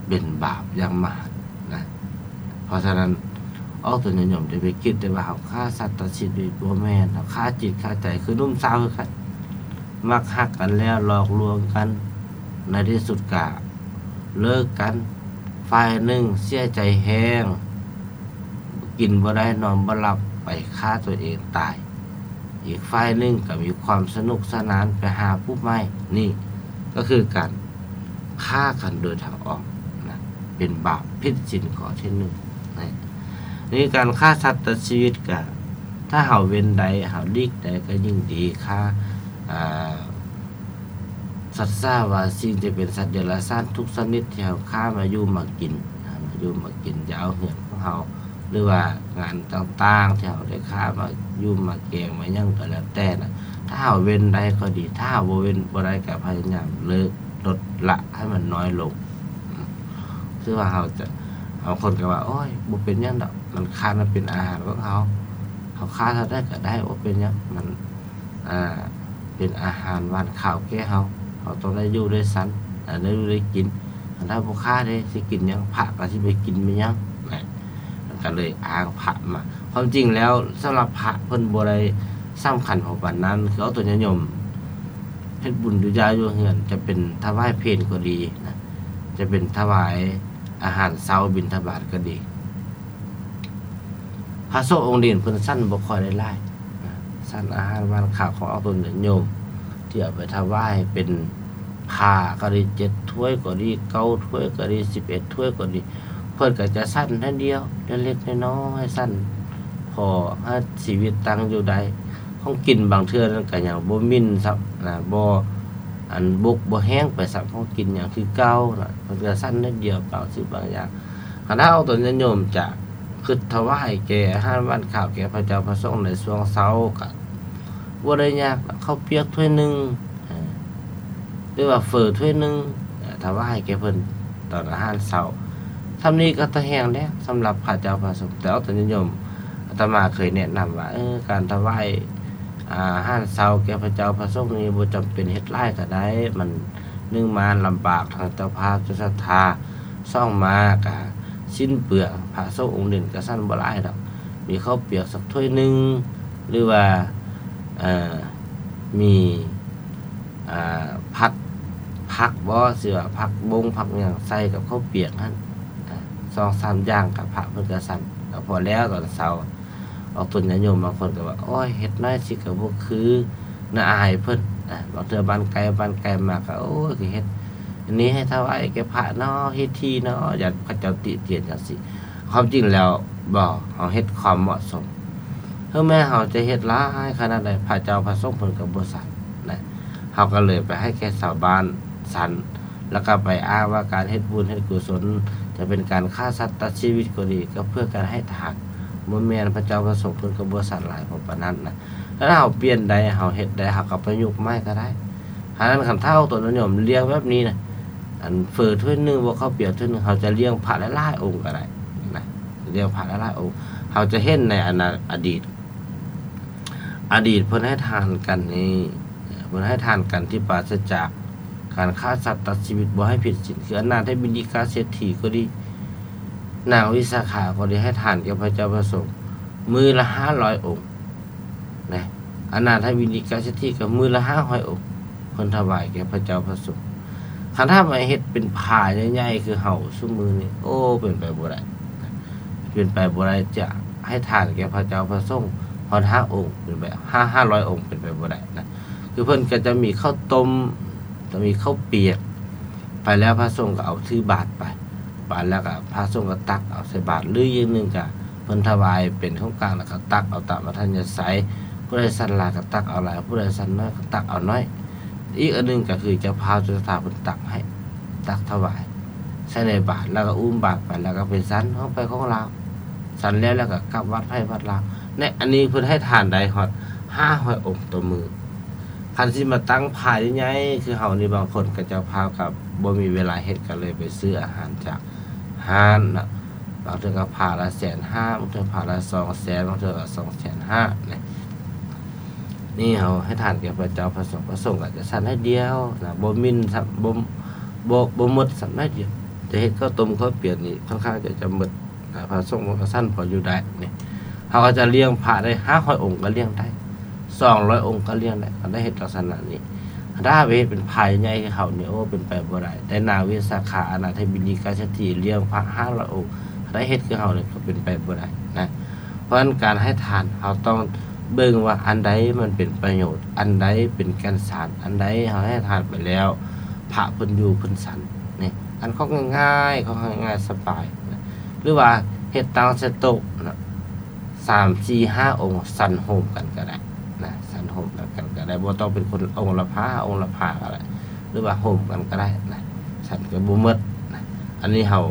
ເປັນບາບຢ່າງມະຫັນນະ. ເພາະສະນັ້ນ ອອກຕົນຍາດໂຍມຈະໄປຄິດແຕ່ວ່າເຮົາຂ້າສັດຕັດຊີວິດ ບໍ່ແມ່ນ, ເຮົາຂ້າຈິດຂ້າໃຈ. ຄືໜຸ່ມສາວຄືກັນ, ມັກຮັກກັນແລ້ວ ຫຼອກລວງກັນ, ໃນທີ່ສຸດກະເລີກກັນ, ຝ່າຍໜຶ່ງເສຍໃຈແຮງ ກິນບໍ່ໄດ້ນອນບໍ່ຫຼັບ ໄປຂ້າຕົວເອງຕາຍ, ອີກຝ່າຍໜຶ່ງກໍມີຄວາມສະໜຸກສະໜານໄປຫາຜູ້ໃໝ່. ນີ້ກໍຄືການຂ້າກັນໂດຍທາງອ້ອມນະ, ເປັນບາບຜິດສິນຂໍ້ທີໜຶ່ງນະ. ນີ້ການຂ້າສັດຕັດຊີວິດກະ ຖ້າເຮົາເວັ້ນໄດ້ ເຮົາຫຼີກໄດ້ກໍຍິ່ງດີ. ຂ້າ ອ່າ ສັດສາວາສີ ຈະເປັນສັດເດຍລະສານທຸກຊະນິດທີ່ເຮົາຂ້າມາຢູ່ມາກິນ, ມາຢູ່ມາກິນ ຈະເອົາເຮືອນຂອງເຮົາ ຫຼືວ່າງານຕ່າງໆທີ່ເຮົາໄດ້ຂ້າມາຢູ່ມາແກງມາຫຍັງກໍແລ້ວແຕ່ນະ, ຖ້າເຮົາເວັ້ນໄດ້ກໍດີ, ຖ້າເຮົາບໍ່ເວັ້ນບໍ່ໄດ້ກໍພະຍາຍາມເລີກ ລົດ ລະໃຫ້ມັນນ້ອຍລົງ. ຄືວ່າເຮົາຈະ ບາງຄົນກໍວ່າ ໂອ້ຍ ບໍ່ເປັນຫຍັງດອກ, ມັນຂ້າ ມັນເປັນອາຫານຂອງເຮົາ, ເຮົາຂ້າເທົ່າໃດກໍໄດ້ ບໍ່ເປັນຫຍັງ, ມັນ ອ່າ ເປັນອາຫານຫວານຄາວແກ່ເຮົາ, ເຮົາຕ້ອງໄດ້ຢູ່ໄດ້ສັນ, ໄດ້ຢູ່ໄດ້ກິນ. ຄັນຖ້າບໍ່ຂ້າເດ້ ຊິກິນຫຍັງ? ພະກໍຊິໄປກິນແມ່ນຫຍັງ? ນະ ມັນກໍເລີຍອ້າງພະມາ. ຄວາມຈິງແລ້ວ ສຳລັບພະເພິ່ນບໍ່ໄດ້ສຳຄັນເທົ່າປານນັ້ນ. ຄືເອົາຕົວຍາດໂຍມເຮັດບຸນຢູ່ຢ້າຢູ່ເຮືອນ, ຈະເປັນຖວາຍເພນກໍດີນະ, ຈະເປັນຖວາຍອາຫານເຊົ້າບິນທະບາດກໍດີ, ພະສົງອົງເດນເພິ່ນສັນບໍ່ຄ່ອຍໄດ້ຫຼາຍນະ, ສັນອາຫານຫວານຄາວຂອງອອກຕົນຍາດໂຍມ ທີ່ເອົາໄປຖວາຍເປັນຜ້າກໍດີ ເຈັດຖ້ວຍກໍດີ ເກົ້າຖ້ວຍກໍດີ ສິບເອັດຖ້ວຍກໍດີ, ເພິ່ນກໍຈະສັນໜ້ອຍດຽວ ເລັກໆນ້ອຍໆ ສັນພໍໃຫ້ຊີວິດຕັ້ງຢູ່ໄດ້. ຂອງກິນບາງເທື່ອນັ້ນກໍຍັງບໍ່ໝິ່ນຊ້ຳນະ, ບໍ່ ອັນ ບົກບໍ່ແຫ້ງໄປຊ້ຳ, ຂອງກິນຍັງຄືເກົ່ານະ, ເພິ່ນກໍສັນໜ້ອຍດຽວບາງສິ່ງບາງຢ່າງ. ຄັນຖ້າອອກຕົນຍາດໂຍມຈະຄິດຖວາຍແກ່ອາຫານຫວານຄາວແກ່ພະເຈົ້າພະສົງໃນຊ່ວງເຊົ້າ ກໍບໍ່ໄດ້ຍາກ, ເຂົ້າປຽກຖ້ວຍໜຶ່ງ ຫຼືວ່າເຝີຖ້ວຍໜຶ່ງ ອາ ຖວາຍແກ່ເພິ່ນຕອນອາຫານເຊົ້າ. ສ່ຳນີ້ກໍຕາແຮງແລ້ວສຳລັບພະເຈົ້າພະສົງ. ແຕ່ອອກຕົນຍາດໂຍມ ອາດຕະມາເຄີຍແນະນຳວ່າ ເອີ ການຖວາຍອາຫານເຊົ້າແກ່ພະເຈົ້າພະສົງນີ້ ບໍ່ຈຳເປັນເຮັດຫຼາຍກໍໄດ້. ມັນ ໜຶ່ງມາລຳບາກທາງເຈົ້າພາບເຈົ້າສັດທາ, ສອງມາກະສິ້ນເປືອງ, ພະສົງອົງເດັ່ນກະສັນບໍ່ຫຼາຍດອກ. ມີເຂົ້າປຽກສັກຖ້ວຍໜຶ່ງ ຫຼືວ່າ ເອີ ມີ ອາ ຜັດຜັກບໍ ຊິວ່າຜັກບົ້ງຜັກຫຍັງໃສ່ກັບເຂົ້າປຽກຫັ້ນ ອາ ສອງສາມຢ່າງ ກະພະເພິ່ນກະສັນ ກະພໍແລ້ວຕອນເຊົ້າ. ອອກຕົນຍາດໂຍມບາງຄົນກໍວ່າ ໂອ້ຍ ເຮັດໜ້ອຍຊິກໍບໍ່ຄື ໜ້າອາຍເພິ່ນ. ອາ ບາງເທື່ອບ້ານໃກ້ ບ້ານໄກມາກໍ ໂອ້ຍ ກໍເຮັດອັນນີ້ໃຫ້ຖວາຍແກ່ພະເນາະ ເຮັດຖີ່ເນາະ ຢ້ານເຂົາເຈົ້າຕິຕຽນຈັ່ງຊີ້. ຄວາມຈິງແລ້ວບໍ່ ເຮົາເຮັດຄວາມເໝາະສົມ. ເຖິງແມ້ເຮົາຈະເຮັດຫຼາຍຂະໜາດໃດ ພະເຈົ້າພະສົງເພິ່ນກໍບໍ່ສັນນະ. ເຮົາກໍເລີຍໄປໃຫ້ແກ່ຊາວບ້ານສັນ ແລ້ວກໍໄປອ້າງວ່າການເຮັດບຸນເຮັດກຸສົນ ຈະເປັນການຂ້າສັດຕັດຊີວິດກໍດີ ກໍເພື່ອການໃຫ້ທານ ບໍ່ແມ່ນ ພະເຈົ້າພະສົງເພິ່ນກໍບໍ່ສັນຫຼາຍພໍປານນັ້ນນະ. ຖ້າເຮົາປ່ຽນໄດ້ ເຮົາເຮັດໄດ້ ເຮົາກໍປະຍຸກໃໝ່ກໍໄດ້. ຫານັ້ນ ຄັນຖ້າອອກຕົນຍາດໂຍມລ້ຽງແບບນີ້ນະ ອັນເຝີຖ້ວຍໜຶ່ງ ບໍ່ເຂົ້າປຽກຖ້ວຍໜຶ່ງ ເຮົາຈະລ້ຽງພະຫຼາຍໆອົງກໍໄດ້ນະ ລ້ຽງພະຫຼາຍໆອົງ. ເຮົາຈະເຫັນໃນອະນາ ອະດີດ ອະດີດເພິ່ນໃຫ້ທານກັນນີ້ ເພິ່ນໃຫ້ທານກັນທີ່ປາສະຈາກການຂ້າສັດຕັດຊີວິດ ບໍ່ໃຫ້ຜິດສິນ ຄືອະນາຖະບິນດິກາເສດຖີກໍດີ ນາງວິສາຂາກໍດີ ໃຫ້ທານແກ່ພະເຈົ້າພະສົງມື້ລະຫ້າຮ້ອຍອົງນະ. ອະນາຖະບິນດິກາເສດຖີກໍມື້ລະຫ້າຮ້ອຍອົງ ເພິ່ນຖວາຍແກ່ພະເຈົ້າພະສົງ. ຄັນຖ້າມາເຮັດເປັນພາໃຫຍ່ໆຄືເຮົາຊຸມື້ນີ້ ໂອ້ ເປັນໄປບໍ່ໄດ້ ເປັນໄປບໍ່ໄດ້ ຈະໃຫ້ທານແກ່ພະເຈົ້າພະສົງຮອດຫ້າອົງ ເປັນໄປ ຫ້າ ຫ້າຮ້ອຍອົງ ເປັນໄປບໍ່ໄດ້ນະ. ຄືເພິ່ນກໍຈະມີເຂົ້າຕົ້ມ ຈະມີເຂົ້າປຽກ ໄປແລ້ວພະສົງກໍເອົາຖືບາດໄປ ບາດແລ້ວກໍພະສົງກໍຕັກເອົາໃສ່ບາດ ຫຼືຢ່າງໜຶ່ງກໍເພິ່ນຖວາຍເປັນຂອງກາງ ແລ້ວກໍຕັກເອົາຕາມອັດທະຍາໄສ ຜູ້ໃດສັນຫຼາຍກໍຕັກເອົາຫຼາຍ ຜູ້ໃດສັນໜ້ອຍກໍຕັກເອົາໜ້ອຍ. ອີກອັນໜຶ່ງກໍຄືເຈົ້າພາບເຈົ້າສັດທາເພິ່ນຕັກໃຫ້ ຕັກຖວາຍໃສ່ໃນບາດ ແລ້ວກໍອຸ້ມບາດໄປ ແລ້ວກໍໄປສັນຂອງໃຜຂອງລາວ ສັນແລ້ວ ແລ້ວກໍກັບວັດໃຜວັດລາວ. ໃນອັນນີ້ເພິ່ນໃຫ້ທານໄດ້ຮອດຫ້າຮ້ອຍອົງຕໍ່ມື້. ຄັນຊິມາຕັ້ງພາໃຫຍ່ໆຄືເຮົານີ້ ບາງຄົນກໍເຈົ້າພາບກໍບໍ່ມີເວລາເຮັດ ກໍເລີຍໄປຊື້ອາຫານຈາກຮ້ານເນາະ. ບາງເທື່ອກໍພາລະແສນຫ້າ ບາງເທື່ອພາລະສອງແສນ ບາງເທື່ອກໍສອງແສນຫ້ານະ. ນີ້ເຮົາໃຫ້ທານແກ່ພະເຈົ້າພະສົງ ພະສົງກໍຈະສັນໜ້ອຍດຽວນະ ບໍ່ໝິ່ນຊ້ຳ ບໍ່ ບໍ່ ບໍ່ໝົດຊ້ຳໜ້ອຍດຽວ. ຈະເຮັດເຂົ້າຕົ້ມເຂົ້າປຽກນີ້ ຄ່ອນຂ້າງຈະ ຈະໝົດ ອາ ພະສົງມັນກໍສັນພໍຢູ່ໄດ້ນີ້. ເຮົາກໍຈະລ້ຽງພະໄດ້ຫ້າຮ້ອຍອົງກໍລ້ຽງໄດ້ ສອງຮ້ອຍອົງກໍລ້ຽງໄດ້ ຄັນໄດ້ເຮັດລັກສະນະນີ້. ຄັນຖ້າໄປເຮັດເປັນພາໃຫຍ່ຄືເຮົານີ້ ໂອ້ ເປັນໄປບໍ່ໄດ້. ແຕ່ນາງວິສາຂາ ອະນາຖະບິນດິກາເສດຖີ ລ້ຽງພະຫ້າຮ້ອຍອົງ ຄັນໄດ້ເຮັດຄືເຮົານີ້ກໍເປັນໄປບໍ່ໄດ້ນະ. ເພາະສະນັ້ນ ການໃຫ້ທານ ເຮົາຕ້ອງເບິ່ງວ່າອັນໃດມັນເປັນປະໂຫຍດ ອັນໃດເປັນແກ່ນສານ ອັນໃດເຮົາໃຫ້ທານໄປແລ້ວ ພະເພິ່ນຢູ່ເພິ່ນສັນນີ້. ອັນຂອງງ່າຍໆ ຂອງງ່າຍໆ ສະບາຍນະ ຫຼືວ່າເຮັດຕັ້ງໃສ່ໂຕະນະ ສາມ ສີ່ ຫ້າອົງ ສັນໂຮມກັນກໍໄດ້ນະ ສັນໂຮມກັນກໍໄດ້ ບໍ່ຕ້ອງເປັນຄົນອົງລະພາ ອົງລະພາກໍໄດ້ ຫຼືວ່າໂຮມກັນກໍໄດ້ນະ ສັນກໍບໍ່ໝົດນະ. ອັນນີ້ເຮົາ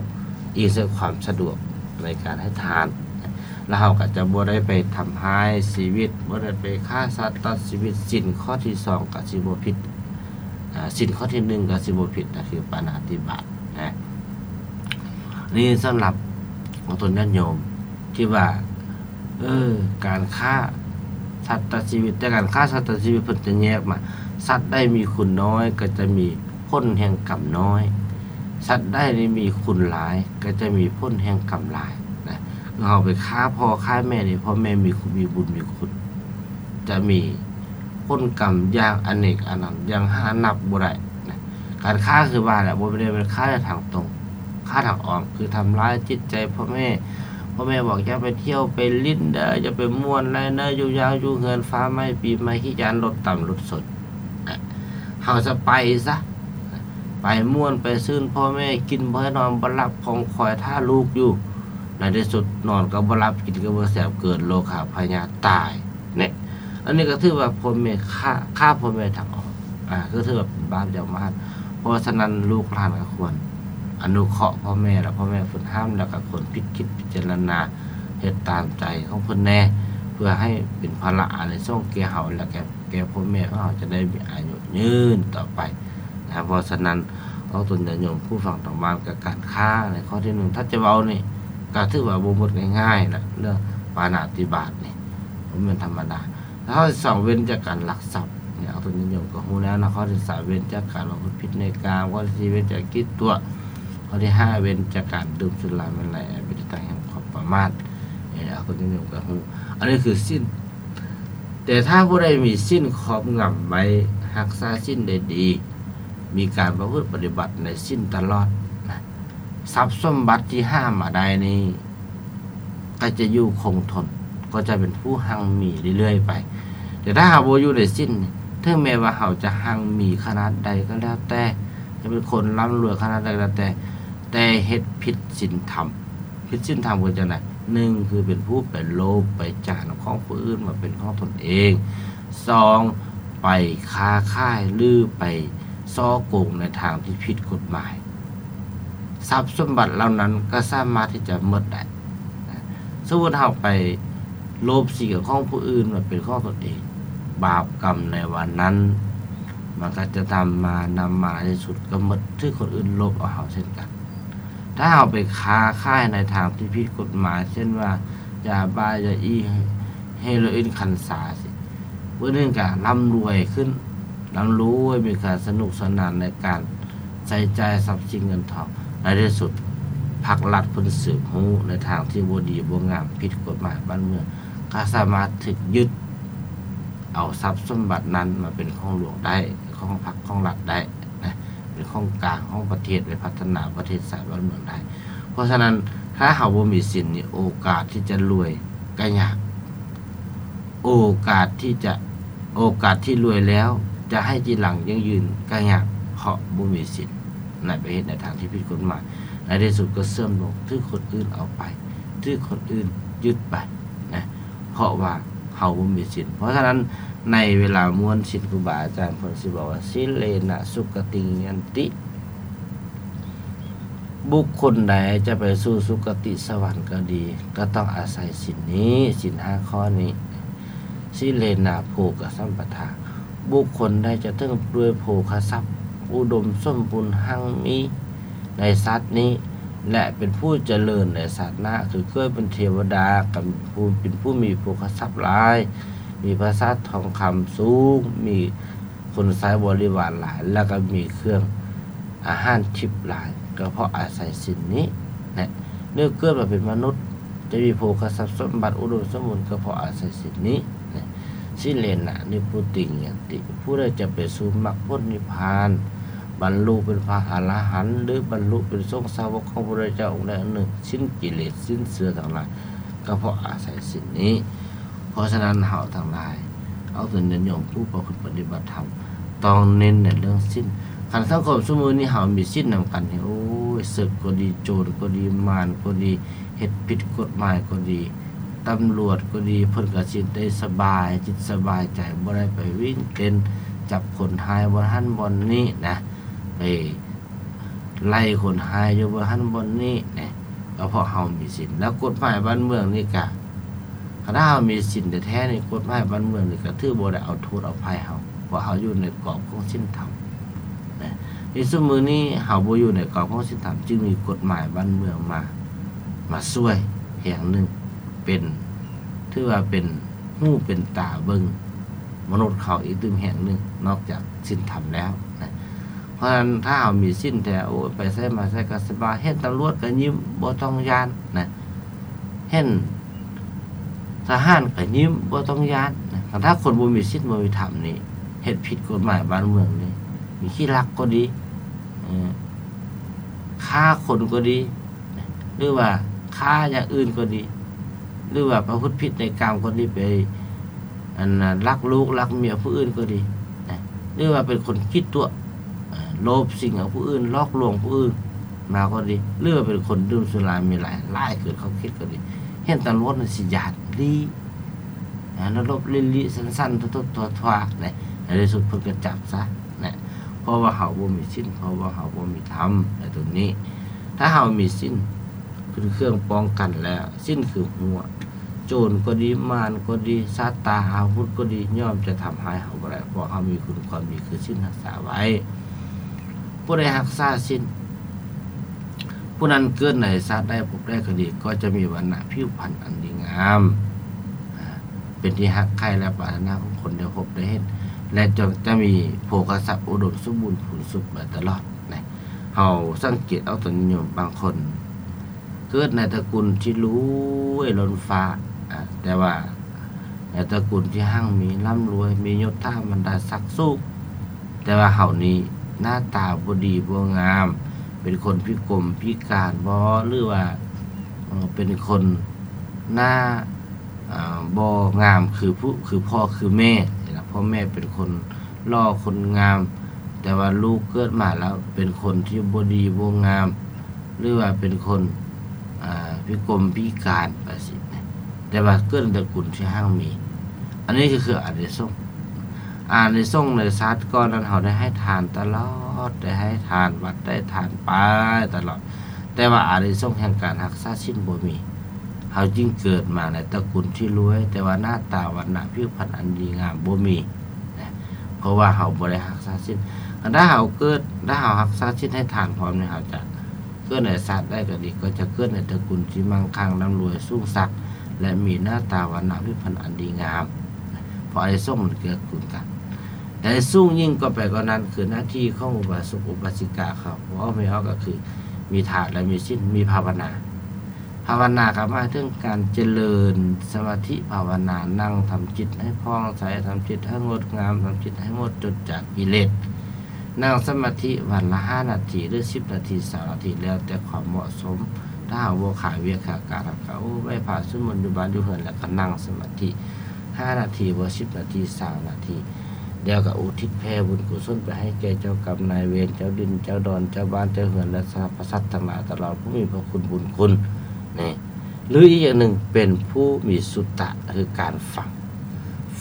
ອີງໃສ່ຄວາມສະດວກໃນການໃຫ້ທານນະ ແລ້ວເຮົາກໍຈະບໍ່ໄດ້ໄປທຳຮ້າຍຊີວິດ ບໍ່ໄດ້ໄປຂ້າສັດຕັດຊີວິດ. ສິນຂໍ້ທີສອງກໍຊິບໍ່ຜິດ ອາ ສິນຂໍ້ທີໜຶ່ງກໍຊິບໍ່ຜິດນະ ຄືປານາຕິບາດນະ. ນີ້ສຳລັບຂອງຕົນຍາດໂຍມທີ່ວ່າ ເອີ ການຂ້າສັດຕັດຊີວິດ ແຕ່ການຂ້າສັດຕັດຊີວິດເພິ່ນຈະແຍກມາ ສັດໃດມີຄຸນນ້ອຍກໍຈະມີຜົນແຫ່ງກຳນ້ອຍ ສັດໃດນີ້ມີຄຸນຫຼາຍກໍຈະມີຜົນແຫ່ງກຳຫຼາຍນະ. ຄືເຮົາໄປຂ້າພໍ່ຂ້າແມ່ນີ້ ພໍ່ແມ່ມີຄຸນ ມີບຸນມີຄຸນ ຈະມີຜົນກຳຢ່າງອະເນກອະນັນ ຢ່າງຫານັບບໍ່ໄດ້ນະ. ການຂ້າຄືວ່າແຫຼະ ບໍ່ໄດ້ແມ່ນຂ້າທາງຕົງ ຂ້າທາງອ້ອມ ຄືທຳລາຍຈິດໃຈພໍ່ແມ່. ພໍ່ແມ່ບອກ ຢ່າໄປທ່ຽວໄປຫຼິ້ນເດີ ຢ່າໄປມ່ວນໄລເດີ ຢູ່ຢ່າງຢູ່ເຮືອນ ຟ້າໄໝ້ປີໃໝ່ ຂີ້ຢ້ານລົດຕຳລົດຊົນ. ເຮົາຈະໄປຊະ ໄປມ່ວນໄປຊື່ນ ພໍ່ແມ່ກິນບໍ່ໃຫ້ນອນບໍ່ຫຼັບ ຂອງຄອຍຖ້າລູກຢູ່. ໃນທີ່ສຸດນອນກໍບໍ່ຫຼັບ ກິນກໍບໍ່ແຊບ ເກີດໂລຄາພະຍາດຕາຍເນາະ. ອັນນີ້ກໍຖືວ່າພໍ່ແມ່ຂ້າ ຂ້າພໍ່ແມ່ທາງອອກ ອາ ກໍຖືວ່າເປັນບາບຢ່າງມະຫັດ. ເພາະສະນັ້ນ ລູກຫຼານກໍຄວນອະນຸເຄາະພໍ່ແມ່ ແລະ ພໍ່ແມ່ເພິ່ນຫ້າມ ແລ້ວກໍຄວນພິດຄິດພິຈາລະນາ ເຮັດຕາມໃຈຂອງເພິ່ນແດ່ ເພື່ອໃຫ້ເປັນພາລະອານິສົງແກ່ເຮົາ ແລະ ແກ່ ແກ່ພໍ່ແມ່ຂອງເຮົາ ຈະໄດ້ມີອາຍຸຍືນຕໍ່ໄປ. ນະ. ເພາະສະນັ້ນ ອອກຕົນຍາດໂຍມຜູ້ຟັງທາງບ້ານ ກະການຄ້າໃນຂໍ້ທີໜຶ່ງ ຖ້າຈະເວົ້ານີ້ ກະຖືວ່າບໍ່ໝົດງ່າຍໆນະ ເລື່ອງປານາຕິບາດນີ້ ບໍ່ແມ່ນທຳມະດາ. ແລ້ວຂໍ້ທີສອງ ເວັ້ນຈາກການລັກຊັບ ນີ້ອອກຕົນຍາດໂຍມກະຮູ້ແລ້ວນະ. ຂໍ້ທີສາມ ເວັ້ນຈາກການປະພຶດຜິດໃນກາມ, ຂໍ້ທີສີ່ ເວັ້ນຈາກກິດຕົວະ, ຂໍ້ທີຫ້າ ເວັ້ນຈາກການດື່ມສຸລາເມໄລ ເປັນທີ່ຕັ້ງແຫ່ງຄວາມປະໝາດ. ເອີ ອອກຕົນຍາດໂຍມກະຮູ້ ອັນນີ້ຄືສິນ. ແຕ່ຖ້າຜູ້ໃດມີສິນຄອບງຳໄວ້ ຮັກສາສິນໄດ້ດີ ມີການປະພຶດປະຕິບັດໃນສິນຕະຫຼອດນະ ຊັບສົມບັດທີ່ຫາມາໄດ້ນີ້ ກໍຈະຢູ່ຄົງທົນ ກໍຈະເປັນຜູ້ຮັ່ງມີເລື້ອຍໆໄປ. ແຕ່ຖ້າເຮົາບໍ່ຢູ່ໃນສິນ ເຖິງແມ່ນວ່າເຮົາຈະຮັ່ງມີຂະໜາດໃດກໍແລ້ວແຕ່ ຈະເປັນຄົນລ່ຳລວຍຂະໜາດໃດກໍແລ້ວແຕ່ ແຕ່ເຮັດຜິດສິນທຳ. ຜິດສິນທຳຄືຈັ່ງໃດ? ໜຶ່ງ ຄືເປັນຜູ້ໄປໂລບໄປຈານຂອງຜູ້ອື່ນມາເປັນຂອງຕົນເອງ. ສອງ ໄປຄ້າຂາຍ ຫຼື ໄປສໍ້ໂກງໃນທາງທີ່ຜິດກົດໝາຍ. ຊັບສົມບັດເຫຼົ່ານັ້ນກໍສາມາດທີ່ຈະໝົດໄດ້. ສົມມຸດເຮົາໄປໂລບສິ່ງຂອງຜູ້ອື່ນມາເປັນຂອງຕົນເອງ, ບາບກຳໃນວັນນັ້ນ ມັນກໍຈະນຳມາ, ນຳມາໃນທີ່ສຸດກໍໝົດ, ຖືກຄົນອື່ນໂລບເອົາເຮົາເຊັ່ນກັນ. ຖ້າເຮົາໄປຄ້າຂາຍໃນທາງທີ່ຜິດກົດໝາຍ ເຊັ່ນວ່າ ຢາບ້າ, ຢາອີ່, ເຮໂຣອິນ, ຄັນຊາ ຊີ້ ຜູ້ໜຶ່ງກໍລ່ຳລວຍຂຶ້ນ, ລ່ຳລວຍ ມີການສະໜຸກສະໜານໃນການໃຊ້ຈ່າຍຊັບສິນເງິນທອງ. ໃນທີ່ສຸດ ພັກລັດເພິ່ນສືບຮູ້ໃນທາງທີ່ບໍ່ດີບໍ່ງາມ ຜິດກົດໝາຍບ້ານເມືອງ ກໍສາມາດຖືກຍຶດເອົາຊັບສົມບັດນັ້ນມາເປັນຂອງຫຼວງໄດ້, ຂອງພັກຂອງລັດໄດ້ນະ, ເປັນຂອງກາງຂອງປະເທດ ໄປພັດທະນາປະເທດຊາດບ້ານເມືອງໄດ້. ເພາະສະນັ້ນ ຖ້າເຮົາບໍ່ມີສິນນີ້ ໂອກາດທີ່ຈະລວຍກໍຍາກ. ໂອກາດທີ່ຈະ, ໂອກາດທີ່ລວຍແລ້ວຈະໃຫ້ຈີຫຼັງຢັ້ງຢືນກໍຍາກ ເພາະບໍ່ມີສິນນະ, ໄປເຮັດໃນທາງທີ່ຜິດກົດໝາຍ, ໃນທີ່ສຸດກໍເສື່ອມລົງ, ຖືກຄົນອື່ນເອົາໄປ, ຖືກຄົນອື່ນຍຶດໄປນະ, ເພາະວ່າເຮົາບໍ່ມີສິນ. ເພາະສະນັ້ນ ໃນເວລາມ້ວນສິນ ຄູບາອາຈານເພິ່ນຊິບອກວ່າ ສິນເລນະສຸກະຕິງຍັນຕິ. ບຸກຄົນໃດຈະໄປສູ່ສຸຄະຕິສະຫວັນກໍດີ ກໍຕ້ອງອາໄສສິນນີ້, ສິນຫ້າຂໍ້ນີ້. ສິນເລນະໂພກະສຳປະທາ, ບຸກຄົນໃດຈະເຖິງດ້ວຍໂພຄະຊັບ ອຸດົມສົມບູນຮັ່ງມີໃນຊາດນີ້ ແລະ ເປັນຜູ້ຈະເລີນໃນຊາດໜ້າ ຄືເກີດເປັນເທວະດາ ກໍເປັນຜູ້ມີໂພຄະຊັບຫຼາຍ, ມີປາສາດທອງຄຳສູງ, ມີ ຄົນໃຊ້ບໍລິວານຫຼາຍ ແລ້ວກໍມີເຄື່ອງອາຫານທິບຫຼາຍ ກໍເພາະອາໄສສິນນີ້ແຫຼະ. ເມື່ອເກີດມາເປັນມະນຸດ ຈະມີໂພຄະຊັບສົມບັດອຸດົມສົມບູນ ກໍເພາະອາໄສສິນນີ້ແຫຼະ. ສິນເລນະນິບພຸຕິງຍັນຕິ, ຜູ້ໃດຈະໄປສູ່ມັກຜົນນິບພານ ບັນລຸເປັນພະອະລະຫັນ ຫຼື ບັນລຸເປັນສົງສາວົກຂອງພະພຸດທະເຈົ້າອົງໃດອົງໜຶ່ງ, ສິ້ນກິເລດ ສິ້ນເຊື້ອທັງຫຼາຍ ກໍເພາະອາໄສສິນນີ້. ເພາະສະນັ້ນ ເຮົາທັງຫຼາຍ ເອົາຕົນຍາດໂຍມຜູ້ປະພຶດປະຕິບັດທຳ ຕ້ອງເນັ້ນໃນເລື່ອງສິນ. ຄັນສັງຄົມຊຸມື້ນີ້ເຮົາມີສິນນຳກັນນີ້ ໂອ້ຍ ເສິກກໍດີ, ໂຈນກໍດີ, ມານກໍດີ, ເຮັດຜິດກົດໝາຍກໍດີ, ຕຳຫຼວດກໍດີ, ເພິ່ນກໍຊິໄດ້ສະບາຍຈິດສະບາຍໃຈ, ບໍ່ໄດ້ໄປວິ່ງເຕັ້ນຈັບຄົນຮ້າຍບ່ອນຫັ້ນບ່ອນນີ້ນະ, ໄປ ໄລ່ຄົນຮ້າຍຢູ່ບ່ອນຫັ້ນບ່ອນນີ້ນະ, ກໍເພາະເຮົາມີສິນ. ແລ້ວກົດໝາຍບ້ານເມືອງນີ້ກະ ຄັນຖ້າເຮົາມີສິນແທ້ໆນີ້ ກົດໝາຍບ້ານເມືອງນີ້ກໍຖືບໍ່ໄດ້ເອົາໂທດເອົາໄພເຮົາ, ເພາະເຮົາຢູ່ໃນກອບຂອງສິນທຳນະ. ໃນຊຸມື້ນີ້ເຮົາບໍ່ຢູ່ໃນກອບຂອງສິນທຳ, ຈຶ່ງມີກົດໝາຍບ້ານເມືອງມາ, ມາຊ່ວຍແຮງໜຶ່ງ, ເປັນ, ຖືວ່າເປັນຫູເປັນຕາເບິ່ງມະນຸດເຂົາອີກຕື່ມແຮງໜຶ່ງ ນອກຈາກສິນທຳແລ້ວນະ. ເພາະສະນັ້ນ ຖ້າເຮົາມີສິນແທ້ ໂອ້ຍ ໄປໃສມາໃສກໍສະບາຍ, ເຫັນຕຳຫຼວດກໍຍິ້ມ ບໍ່ຕ້ອງຢ້ານນະ, ເຫັນທະຫານກໍຍິ້ມ ບໍ່ຕ້ອງຢ້ານນະ. ຄັນຖ້າຄົນບໍ່ມີສິນບໍ່ມີທຳນີ້ ເຮັດຜິດກົດໝາຍບ້ານເມືອງນີ້ ມີຂີ້ລັກກໍດີ, ເອີ ຂ້າຄົນກໍດີ ຫຼືວ່າຂ້າຢ່າງອື່ນກໍດີ ຫຼືວ່າປະພຶດຜິດໃນກາມກໍດີ ໄປ ອັນນະ ລັກລູກລັກເມຍຜູ້ອື່ນກໍດີນະ, ຫຼືວ່າເປັນຄົນຂີ້ຕົວະ ເອີ ໂລບສິ່ງຂອງຜູ້ອື່ນ ຫຼອກລວງຜູ້ອື່ນມາກໍດີ ຫຼືວ່າເປັນຄົນດື່ມສຸລາເມໄລຫຼາຍເກີນຂອບເຂດກໍດີ, ເຫັນຕຳຫຼວດນີ້ຊິຢ້ານລີ້ນະ, ລະຫຼົບລີ້ໆ ສັ່ນໆ ທົວໆ ນະ, ໃນທີ່ສຸດເພິ່ນກໍຈັບຊະນະ, ເພາະວ່າເຮົາບໍ່ມີສິນ ເພາະວ່າເຮົາບໍ່ມີທຳໃນຕົວນີ້. ຖ້າເຮົາມີສິນ ເປັນເຄື່ອງປ້ອງກັນແລ້ວ, ສິນຄືຮົ້ວ, ໂຈນກໍດີ, ມານກໍດີ, ສັດຕາອາວຸດກໍດີ ຍ່ອມຈະທຳຮ້າຍເຮົາບໍ່ໄດ້, ເພາະເຮົາມີຄຸນຄວາມດີຄືສິນຮັກສາໄວ້. ຜູ້ໃດຮັກສາສິນ ຜູ້ນັ້ນເກີດໃນຊາດໃດພົບໃດກໍດີ ກໍຈະມີວັນນະຜິວພັນອັນດີງາມ ເປັນທີ່ຮັກໃຄ່ ແລະ ປາດຖະໜາຂອງຄົນໄດ້ພົບໄດ້ເຫັນ ແລະ ຈະ ຈະມີໂພຄະຊັບອຸດົມສົມບູນພູນສຸກໄປຕະຫຼອດນະ. ເຮົາສັງເກດເອົາຕົນຍາດໂຍມບາງຄົນ ເກີດໃນຕະກຸນທີ່ລວຍລົ້ນຟ້າ ອາ ແຕ່ວ່າໃນຕະກຸນທີ່ຮັ່ງມີ ລ່ຳລວຍ ມີຍົດຖາບັນດາສັກສູງ ແຕ່ວ່າເຮົານີ້ໜ້າຕາບໍ່ດີບໍ່ງາມ ເປັນຄົນພິກົມພິການບໍ ຫຼືວ່າ ເອີ ເປັນຄົນໜ້າ ເອີ ບໍ່ງາມຄືຜູ້ ຄືພໍ່ຄືແມ່ ພໍ່ແມ່ເປັນຄົນຫຼໍ່ຄົນງາມ ແຕ່ວ່າລູກເກີດມາແລ້ວເປັນຄົນທີ່ບໍ່ດີບໍ່ງາມ ຫຼືວ່າເປັນຄົນ ອາ ພິກົມພິການໄປຊີ້ນະ ແຕ່ວ່າເກີດໃນຕະກຸນທີ່ຮັ່ງມີ ອັນນີ້ກໍຄືອານິສົງ. ອານິສົງໃນຊາດກ່ອນນັ້ນ ເຮົາໄດ້ໃຫ້ທານຕະຫຼອດ ໄດ້ໃຫ້ທານວັດ ໄດ້ທານໄປຕະຫຼອດ ແຕ່ວ່າອານິສົງແຫ່ງການຮັກສາສິນບໍ່ມີ ເຮົາຈຶ່ງເກີດມາໃນຕະກຸນທີ່ລວຍ ແຕ່ວ່າໜ້າຕາວັນນະຜິວພັນອັນດີງາມບໍ່ມີນະ ເພາະວ່າເຮົາບໍ່ໄດ້ຮັກສາສິນ. ຄັນຖ້າເຮົາເກີດ ຖ້າເຮົາຮັກສາສິນໃຫ້ທານພ້ອມນີ້ ເຮົາຈະເກີດໃນຊາດໃດກໍດີ ກໍຈະເກີດໃນຕະກຸນທີ່ໝັ່ງຄັ່ງ ລ່ຳລວຍ ສູງສັກ ແລະ ມີໜ້າຕາວັນນະຜິວພັນອັນດີງາມ ເພາະອານິສົງມັນເກື້ອກູນກັນ. ແຕ່ສູງຍິ່ງກວ່າໄປກວ່ານັ້ນ ຄືໜ້າທີ່ຂອງອຸບາສົກອຸບາສິກາເຂົາ ເວົ້າໄປເຮົາກໍຄືມີທານ ແລະ ມີສິນ ມີພາວະນາ. ພາວະນາກໍໝາຍເຖິງການຈະເລີນສະມາທິພາວະນາ ນັ່ງທຳຈິດໃຫ້ຜ່ອງໃສ, ທຳຈິດໃຫ້ງົດງາມ, ທຳຈິດໃຫ້ໝົດຈົດຈາກກິເລດ. ນັ່ງສະມາທິວັນລະຫ້ານາທີ ຫຼື ສິບນາທີ, ຊາວນາທີ ແລ້ວແຕ່ຄວາມເໝາະສົມ. ຖ້າເຮົາບໍ່ຂາວຽກຂາວການ ເຮົາກໍ ໂອ້ ໄຫວ້ພະສວດມົນຢູ່ບ້ານຢູ່ເຮືອນ ແລ້ວກໍນັ່ງສະມາທິຫ້ານາທີບໍ ສິບນາທີ ຊາວນາທີ ແລ້ວກໍອຸທິດແຜ່ບຸນກຸສົນໄປໃຫ້ແກ່ເຈົ້າກຳນາຍເວນ, ເຈົ້າດິນເຈົ້າດອນ, ເຈົ້າບ້ານເຈົ້າເຮືອນ ແລະ ສັບພະສັດທັງຫຼາຍ ຕະຫຼອດຜູ້ມີພະຄຸນບຸນຄຸນນີ້. ຫຼືອີກຢ່າງໜຶ່ງ ເປັນຜູ້ມີສຸຕະ ຄືການຟັງ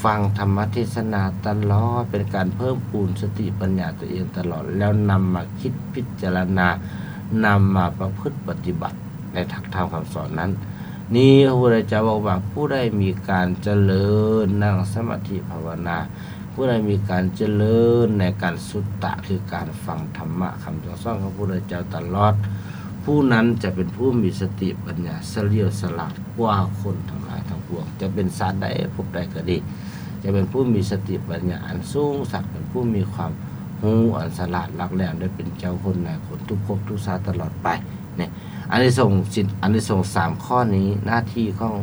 ຟັງທຳມະເທດສະໜາຕະຫຼອດ ເປັນການເພີ່ມພູນສະຕິປັນຍາຕົວເອງຕະຫຼອດ ແລ້ວນຳມາຄິດພິຈາລະນາ ນຳມາປະພຶດປະຕິບັດໃນຫຼັກທຳຄຳສອນນັ້ນ. ນີ້ພະພຸດທະເຈົ້າບອກວ່າ ຜູ້ໃດມີການຈະເລີນນັ່ງສະມາທິພາວະນາ ຜູ້ໃດມີການຈະເລີນໃນການສຸດຕະ ຄືການຟັງທຳມະຄຳສັ່ງສອນຂອງພະພຸດທະເຈົ້າຕະຫຼອດ, ຜູ້ນັ້ນຈະເປັນຜູ້ມີສະຕິປັນຍາສະຫຼຽວສະຫຼາດກວ່າຄົນທັງຫຼາຍທັງປວງ, ຈະເປັນຊາດໃດພົບໃດກໍດີ, ຈະເປັນຜູ້ມີສະຕິປັນຍາອັນສູງສັກ, ເປັນຜູ້ມີຄວາມຮູ້ອັນສະຫຼາດຫຼັກແຫຼມ ແລະ ເປັນເຈົ້າຄົນນາຍຄົນທຸກພົບທຸກຊາດຕະຫຼອດໄປ. ນີ້ ອານິສົງສິນ ອານິສົງສາມຂໍ້ນີ້ ໜ້າທີ່ຂອງ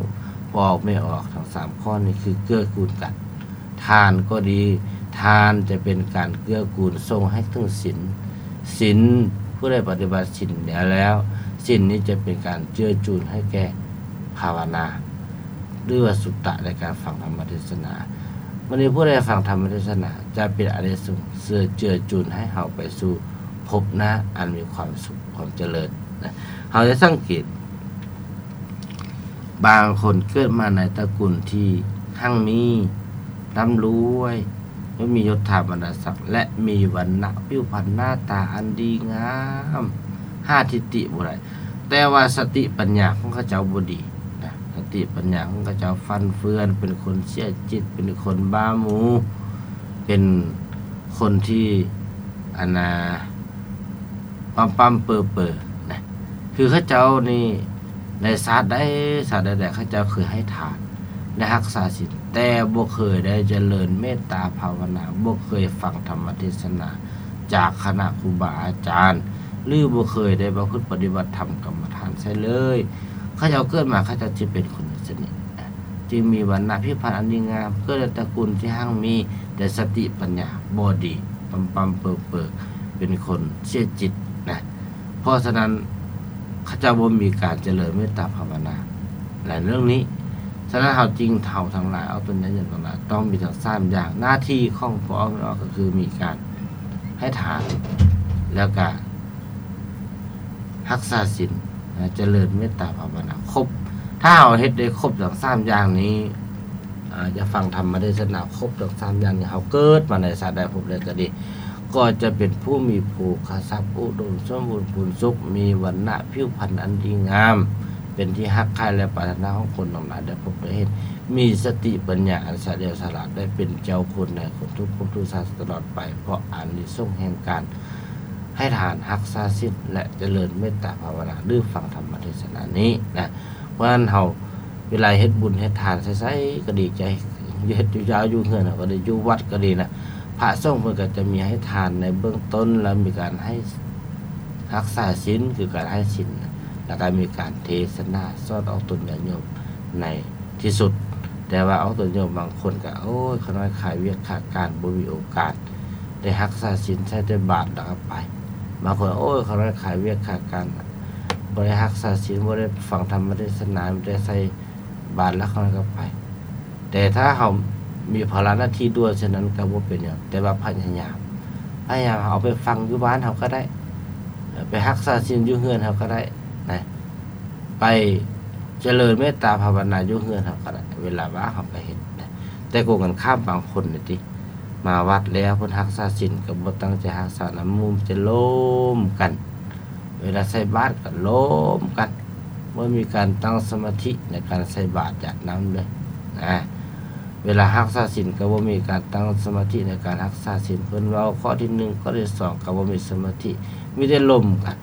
ພໍ່ອອກແມ່ອອກທັງສາມຂໍ້ນີ້ ຄືເກື້ອກູນກັນ. ທານກໍດີ ທານຈະເປັນການເກື້ອກູນສົ່ງໃຫ້ເຖິງສິນ, ສິນ ຜູ້ໃດປະຕິບັດສິນແລ້ວ ສິນນີ້ຈະເປັນການເຈືອຈູນໃຫ້ແກ່ພາວະນາ ຫຼືວ່າສຸດຕະໃນການຟັງທຳມະເທດສະໜາ. ມື້ນີ້ຜູ້ໃດຟັງທຳມະເທດສະໜາ ຈະເປັນອານິສົງເຊື້ອເຈືອຈູນໃຫ້ເຮົາໄປສູ່ພົບໜ້າອັນມີຄວາມສຸກ ຄວາມຈະເລີນນະ. ເຮົາຈະສັງເກດ ບາງຄົນເກີດມາໃນຕະກຸນທີ່ຮັ່ງມີ, ລ່ຳລວຍ, ແລະ ມີຍົດຖາບັນດາສັກ ແລະ ມີວັນນະຜິວພັນໜ້າຕາອັນດີງາມ, ຫາທິດຕິບໍ່ໄດ້, ແຕ່ວ່າສະຕິປັນຍາຂອງເຂົາເຈົ້າບໍ່ດີນະ, ສະຕິປັນຍາຂອງເຂົາເຈົ້າຟັ່ນເຟືອນ, ເປັນຄົນເສຍຈິດ, ເປັນຄົນບ້າໝູ, ເປັນຄົນທີ່ ອັນນ່າ ປ້ຳໆເປີໆນະ. ຄືເຂົາເຈົ້ານີ້ ໃນຊາດໃດຊາດໃດໆ ເຂົາເຈົ້າເຄີຍໃຫ້ທານ ໄດ້ຮັກສາສິນ ແຕ່ບໍ່ເຄີຍໄດ້ຈະເລີນເມດຕາພາວະນາ, ບໍ່ເຄີຍຟັງທຳມະເທດສະໜາຈາກຄະນະຄູບາອາຈານ ຫຼື ບໍ່ເຄີຍໄດ້ປະພຶດປະຕິບັດທຳກຳມະຖານໃສເລີຍ. ເຂົາເຈົ້າເກີດມາ ເຂົາເຈົ້າຈະເປັນຄົນຈັ່ງຊີ້ນະ. ຈຶ່ງມີວັນນະຜິວພັນອັນດີງາມ, ເກີດໃນຕະກຸນທີ່ຮັ່ງມີ, ແຕ່ສະຕິປັນຍາບໍ່ດີ, ປ້ຳໆເປີໆ, ເປັນຄົນເສຍຈິດນະ. ເພາະສະນັ້ນ ເຂົາເຈົ້າບໍ່ມີການຈະເລີນເມດຕາພາວະນາ ແລະ ເລື່ອງນີ້. ສະນັ້ນ ເຮົາຈຶ່ງ ເຮົາທັງຫຼາຍ ອອກຕົນຍາດໂຍມທັງຫຼາຍ ຕ້ອງມີທັງສາມຢ່າງ. ໜ້າທີ່ຂອງພໍ່ອອກແມ່ອອກກໍຄືມີການໃຫ້ທານ ແລ້ວກະ ຮັກສາສິນນະ, ຈະເລີນເມດຕາພາວະນາຄົບ. ຖ້າເຮົາເຮັດໄດ້ຄົບທັງສາມຢ່າງນີ້, ອາ, ຈະຟັງທຳມະເທດສະໜາຄົບທັງສາມຢ່າງນີ້, ເຮົາເກີດມາໃນຊາດໃດພົບໃດກໍດີ, ກໍຈະເປັນຜູ້ມີໂພຄະຊັບອຸດົມສົມບູນພູນສຸກ, ມີວັນນະຜິວພັນອັນດີງາມ, ເປັນທີ່ຮັກໃຄ່ ແລະ ປາດຖະໜາຂອງຄົນທັງຫຼາຍໄດ້ພົບໄດ້ເຫັນ, ມີສະຕິປັນຍາອັນສະຫຼຽວສະຫຼາດ, ໄດ້ເປັນເຈົ້າຄົນນາຍຄົນທຸກພົບທຸກຊາດຕະຫຼອດໄປ, ເພາະອານິສົງແຫ່ງການ ໃຫ້ທານ, ຮັກສາສິນ ແລະ ຈະເລີນເມດຕາພາວະນາ ຫຼື ຟັງທຳມະເທດສະນານີ້ນະ. ເພາະສະນັ້ນເຮົາ ເວລາເຮັດບຸນເຮັດທານໃສໆ ກໍດີໃຈ, ເຮັດຢູ່ເຈົ້າຢູ່ເຮືອນເຮົາກໍດີ, ຢູ່ວັດກໍດີນະ, ພະສົງເພິ່ນກໍຈະມີໃຫ້ທານໃນເບື້ອງຕົ້ນ ແລ້ວມີການໃຫ້ຮັກສາສິນ ຄືການໃຫ້ສິນ, ແລ້ວກໍມີການເທສະໜາສອນອອກຕົນຍາດໂຍມໃນທີ່ສຸດ. ແຕ່ວ່າອອກຕົນໂຍມບາງຄົນກໍ ໂອ້ຍ ຂ້ານ້ອຍຄາວຽກຄາການ ບໍ່ມີໂອກາດໄດ້ຮັກສາສິນ, ໃສ່ແຕ່ບາດແລ້ວກໍໄປ. ບາງຄົນ ໂອ້ຍ ຂ້ານ້ອຍຄາວຽກຄາການ ບໍ່ໄດ້ຮັກສາສິນ, ບໍ່ໄດ້ຟັງທຳມະເທດສະໜາ, ມີແຕ່ໃສ່ບາດແລ້ວຂ້ານ້ອຍກໍໄປ. ແຕ່ຖ້າເຮົາມີພາລະໜ້າທີ່ດ່ວນເຊັ່ນນັ້ນກໍບໍ່ເປັນຫຍັງ, ແຕ່ວ່າພະຍາຍາມ, ພະຍາຍາມເອົາໄປຟັງຢູ່ບ້ານເຮົາກໍໄດ້, ໄປຮັກສາສິນຢູ່ເຮືອນເຮົາກໍໄດ້ນະ, ໄປຈະເລີນເມດຕາພາວະນາຢູ່ເຮືອນເຮົາກໍໄດ້, ເວລາວ່າງເຮົາກໍເຮັດນະ. ແຕ່ກົງກັນຂ້າມ ບາງຄົນນີ້ຕິ ມາວັດແລ້ວເພິ່ນຮັກສາສິນກໍບໍ່ຕັ້ງໃຈຮັກສານຳໝູ່, ຈະລົມກັນ, ເວລາໃສ່ບາດກໍລົມກັນ, ບໍ່ມີການຕັ້ງສະມາທິໃນການໃສ່ບາດຢາດນ້ຳເລີຍນະ. ເວລາຮັກສາສິນກໍບໍ່ມີການຕັ້ງສະມາທິໃນການຮັກສາສິນ, ເພິ່ນເວົ້າຂໍ້ທີໜຶ່ງ ຂໍ້ທີສອງ ກໍບໍ່ມີສະມາທິ, ມີແຕ່ລົມກັນ.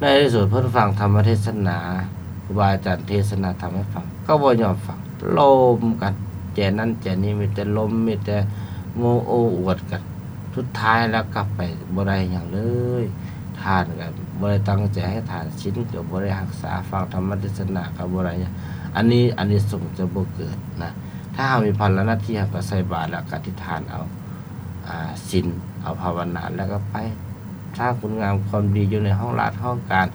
ໃນທີ່ສຸດເພິ່ນຟັງທຳມະເທດສະໜາ, ຄູບາອາຈານເທສະນາທຳໃຫ້ຟັງ ກໍບໍ່ຍອມຟັງ, ລົມກັນ, ແຈນັ້ນແຈນີ້, ມີແຕ່ລົມ, ມີແຕ່ໂອ້ໂອ້ອວດກັນ, ສຸດທ້າຍແລ້ວກໍໄປບໍ່ໄດ້ຫຍັງເລີຍ. ທານກໍບໍ່ໄດ້ຕັ້ງໃຈໃຫ້ທານ, ສິນກໍບໍ່ໄດ້ຮັກສາ, ຟັງທຳມະເທດສະໜາກໍບໍ່ໄດ້ຫຍັງ. ອັນນີ້ອານິສົງຈະບໍ່ເກີດນະ. ຖ້າເຮົາມີພາລະໜ້າທີ່, ເຮົາກໍໃສ່ບາດ ແລ້ວກໍອະທິຖານເອົາ ອາ ສິນ, ເອົາພາວະນາ ແລ້ວກໍໄປ ສ້າງຄຸນງາມຄວາມດີຢູ່ໃນຫ້ອງລາດຫ້ອງການ,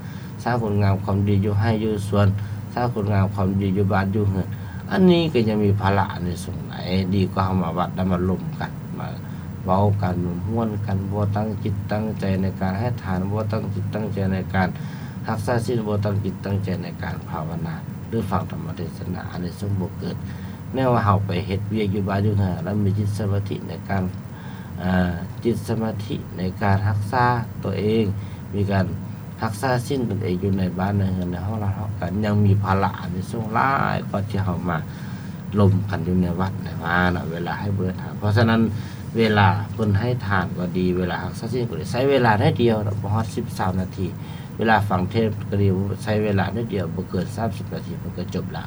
ສ້າງຄຸນງາມຄວາມດີຢູ່ໄຮ່ຢູ່ສວນ, ສ້າງຄຸນງາມຄວາມດີຢູ່ບ້ານຢູ່ເຮືອນ. ອັນນີ້ກໍຍັງມີພາລະອານິສົງຫຼາຍ, ດີກວ່າເຮົາມາວັດແລ້ວມາລົມກັນ, ມາເວົ້າກັນ, ມາມ່ວນກັນ, ບໍ່ຕັ້ງຈິດຕັ້ງໃຈໃນການໃຫ້ທານ, ບໍ່ຕັ້ງຈິດຕັ້ງໃຈໃນການຮັກສາສິນ, ບໍ່ຕັ້ງຈິດຕັ້ງໃຈໃນການພາວະນາ ຫຼື ຟັງທຳມະເທດສະໜາ, ອານິສົງບໍ່ເກີດ. ແນວວ່າເຮົາໄປເຮັດວຽກຢູ່ບ້ານຢູ່ເຮືອນ ແລ້ວມີຈິດສະມາທິໃນການ ອາ ຈິດສະມາທິໃນການຮັກສາຕົວເອງ, ມີການຮັກສາສິນຕົນເອງຢູ່ໃນບ້ານໃນເຮືອນໃນຫ້ອງລາດຫ້ອງການ, ຍັງມີພາລະອານິສົງຫຼາຍກວ່າທີ່ເຮົາມາລົມກັນຢູ່ໃນວັດໃນວາເນາະ, ເວລາໃຫ້ບຸນໃຫ້ທານ. ເພາະສະນັ້ນ ເວລາເພິ່ນໃຫ້ທານກໍດີ, ເວລາຮັກສາສິນກໍດີ, ໃຊ້ເວລາໜ້ອຍດຽວເນາະ, ບໍ່ຮອດສິບ ຊາວນາທີ. ເວລາຟັງເທດກໍດີ, ໃຊ້ເວລາໜ້ອຍດຽວ, ບໍ່ເກີນສາມສິບນາທີ ມັນກໍຈົບລະ.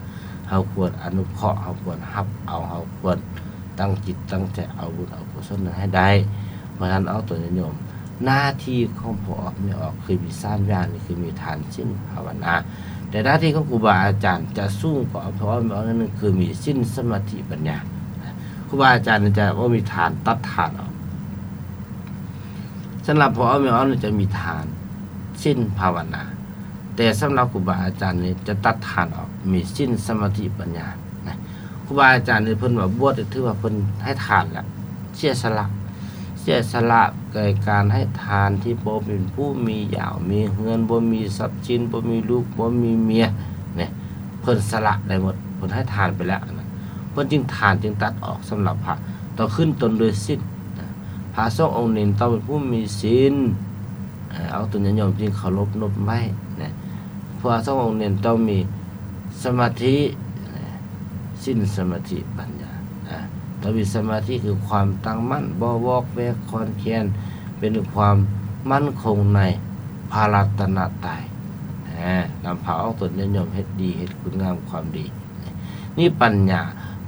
ເຮົາຄວນອະນຸເຄາະ, ເຮົາຄວນຮັບເອົາ, ເຮົາຄວນ ຕັ້ງຈິດຕັ້ງໃຈເອົາບຸນເອົາກຸສົນນັ້ນໃຫ້ໄດ້. ເພາະສະນັ້ນອອກຕົນຍາດໂຍມ, ໜ້າທີ່ຂອງພໍ່ອອກແມ່ອອກຄືມີສາມຢ່າງນີ້ ຄືມີທານ, ສິນ, ພາວະນາ. ແຕ່ໜ້າທີ່ຂອງຄູບາອາຈານຈະສູງກວ່າພໍ່ອອກແມ່ອອກໜ້ອຍໜຶ່ງ ຄືມີສິນ, ສະມາທິ, ປັນຍາ. ຄູບາອາຈານຈະບໍ່ມີທານ, ຕັດທານອອກ. ສຳລັບພໍ່ອອກແມ່ອອກນີ້ຈະມີທານ, ສິນ, ພາວະນາ. ແຕ່ສຳລັບຄູບາອາຈານນີ້ຈະຕັດທານອອກ, ມີສິນ, ສະມາທິ, ປັນຍານະ. ຄູບາອາຈານນີ້ເພິ່ນວ່າບວດນີ້ຖືວ່າເພິ່ນໃຫ້ທານແລ້ວ, ເສຍສະຫຼະ, ເສຍສະຫຼະແກ່ການໃຫ້ທານທີ່ບໍ່ເປັນຜູ້ມີຢາວມີເຮືອນ, ບໍ່ມີຊັບສິນ, ບໍ່ມີລູກ, ບໍ່ມີເມຍ, ນີ້ ເພິ່ນສະຫຼະໄດ້ໝົດ, ເພິ່ນໃຫ້ທານໄປແລ້ວນະ. ເພິ່ນຈຶ່ງ ທານຈຶ່ງຕັດອອກສຳລັບພະ, ຕ້ອງຂຶ້ນຕົ້ນດ້ວຍສິນນະ. ພະສົງອົງໜຶ່ງຕ້ອງເປັນຜູ້ມີສິນ, ອາ ອອກຕົນຍາດໂຍມຈຶ່ງເຄົາລົບນົບໄຫວ້ນະ. ພະສົງອົງໜຶ່ງຕ້ອງມີສະມາທິ, ສິນ, ສະມາທິ, ປັນຍາ, ອາ ຕ້ອງມີສະມາທິ ຄືຄວາມຕັ້ງໝັ້ນ, ບໍ່ວອກແວກຄອນແຄນ, ເປັນຄວາມໝັ້ນຄົງໃນພະລັດຕະນະໄຕ, ອາ ນຳພາອອກຕົນຍາດໂຍມເຮັດດີ, ເຮັດຄຸນງາມຄວາມດີ. ນີ້ປັນຍາ,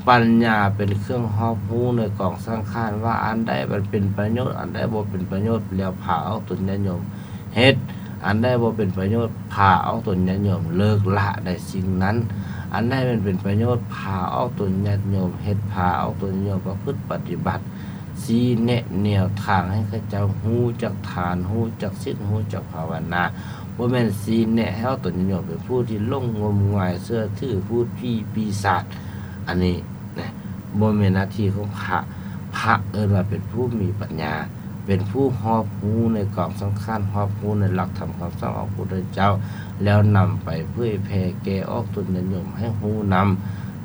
ປັນຍາເປັນເຄື່ອງຮອບຮູ້ໃນກອງສັງຂານ ວ່າອັນໃດມັນເປັນປະໂຫຍດ, ອັນໃດບໍ່ເປັນປະໂຫຍດ, ແລ້ວພາອອກຕົນຍາດໂຍມເຮັດ, ອັນໃດບໍ່ເປັນປະໂຫຍດ, ພາອອກຕົນຍາດໂຍມເລີກລະໃນສິ່ງນັ້ນ, ອັນໃດມັນເປັນປະໂຫຍດ, ພາອອກຕົນຍາດໂຍມເຮັດ, ພາອອກຕົນຍາດໂຍມປະພຶດປະຕິບັດ, ຊີ້ແນະແນວທາງໃຫ້ເຂົາເຈົ້າຮູ້ຈັກທານ, ຮູ້ຈັກສິນ, ຮູ້ຈັກພາວະນາ. ບໍ່ແມ່ນຊີ້ແນະໃຫ້ອອກຕົນຍາດໂຍມເປັນຜູ້ທີ່ຫຼົງງົມງາຍເຊື່ອຖືພູດຜີປີສາດ. ອັນນີ້ນະ ບໍ່ແມ່ນໜ້າທີ່ຂອງພະ. ພະເອີ້ນວ່າເປັນຜູ້ມີປັນຍາ, ເປັນຜູ້ຮອບຮູ້ໃນກອງສັງຂານ, ຮອບຮູ້ໃນຫຼັກທຳຄຳສອນຂອງພະພຸດທະເຈົ້າ, ແລ້ວນຳໄປເຜີຍແຜ່ແກ່ອອກຕົນຍາດໂຍມໃຫ້ຮູ້ນຳ,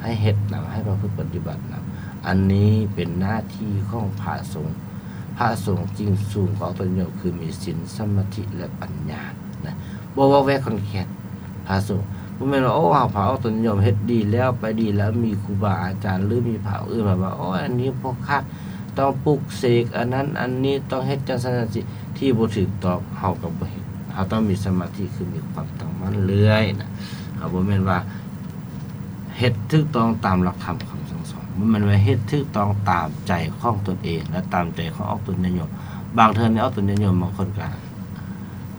ໃຫ້ເຮັດນຳ, ໃຫ້ປະພຶດປະຕິບັດນຳ. ອັນນີ້ເປັນໜ້າທີ່ຂອງພະສົງ. ພະສົງຈຶ່ງສູງກວ່າອອກຕົນຍາດໂຍມ ຄືມີສິນ, ສະມາທິ ແລະ ປັນຍານະ, ບໍ່ວອກແວກຄອນແຄນ. ພະສົງ ບໍ່ແມ່ນວ່າ ໂອ້ ເຮົາພາອອກຕົນຍາດໂຍມເຮັດດີແລ້ວ ໄປດີແລ້ວ ມີຄູບາອາຈານ ຫຼື ມີພະອົງອື່ນມາວ່າ ໂອ້ຍ ອັນນີ້ບໍ່ຄັກ, ຕ້ອງປຸກເສກອັນນັ້ນອັນນີ້ ຕ້ອງເຮັດຈັ່ງຊັ້ນຈັ່ງຊີ້ ທີ່ບໍ່ຖືກຕ້ອງ ເຮົາກໍບໍ່ເຮັດ. ເຮົາຕ້ອງມີສະມາທິ ຄືມີຄວາມຕັ້ງໝັ້ນເລື້ອຍນະ. ເຮົາບໍ່ແມ່ນວ່າເຮັດຖືກຕ້ອງຕາມຫຼັກທຳຄຳສັ່ງສອນ, ບໍ່ແມ່ນວ່າເຮັດຖືກຕ້ອງຕາມໃຈຂອງຕົນເອງ ແລະ ຕາມໃຈຂອງອອກຕົນຍາດໂຍມ. ບາງເທື່ອນີ້ອອກຕົນຍາດໂຍມບາງຄົນກໍ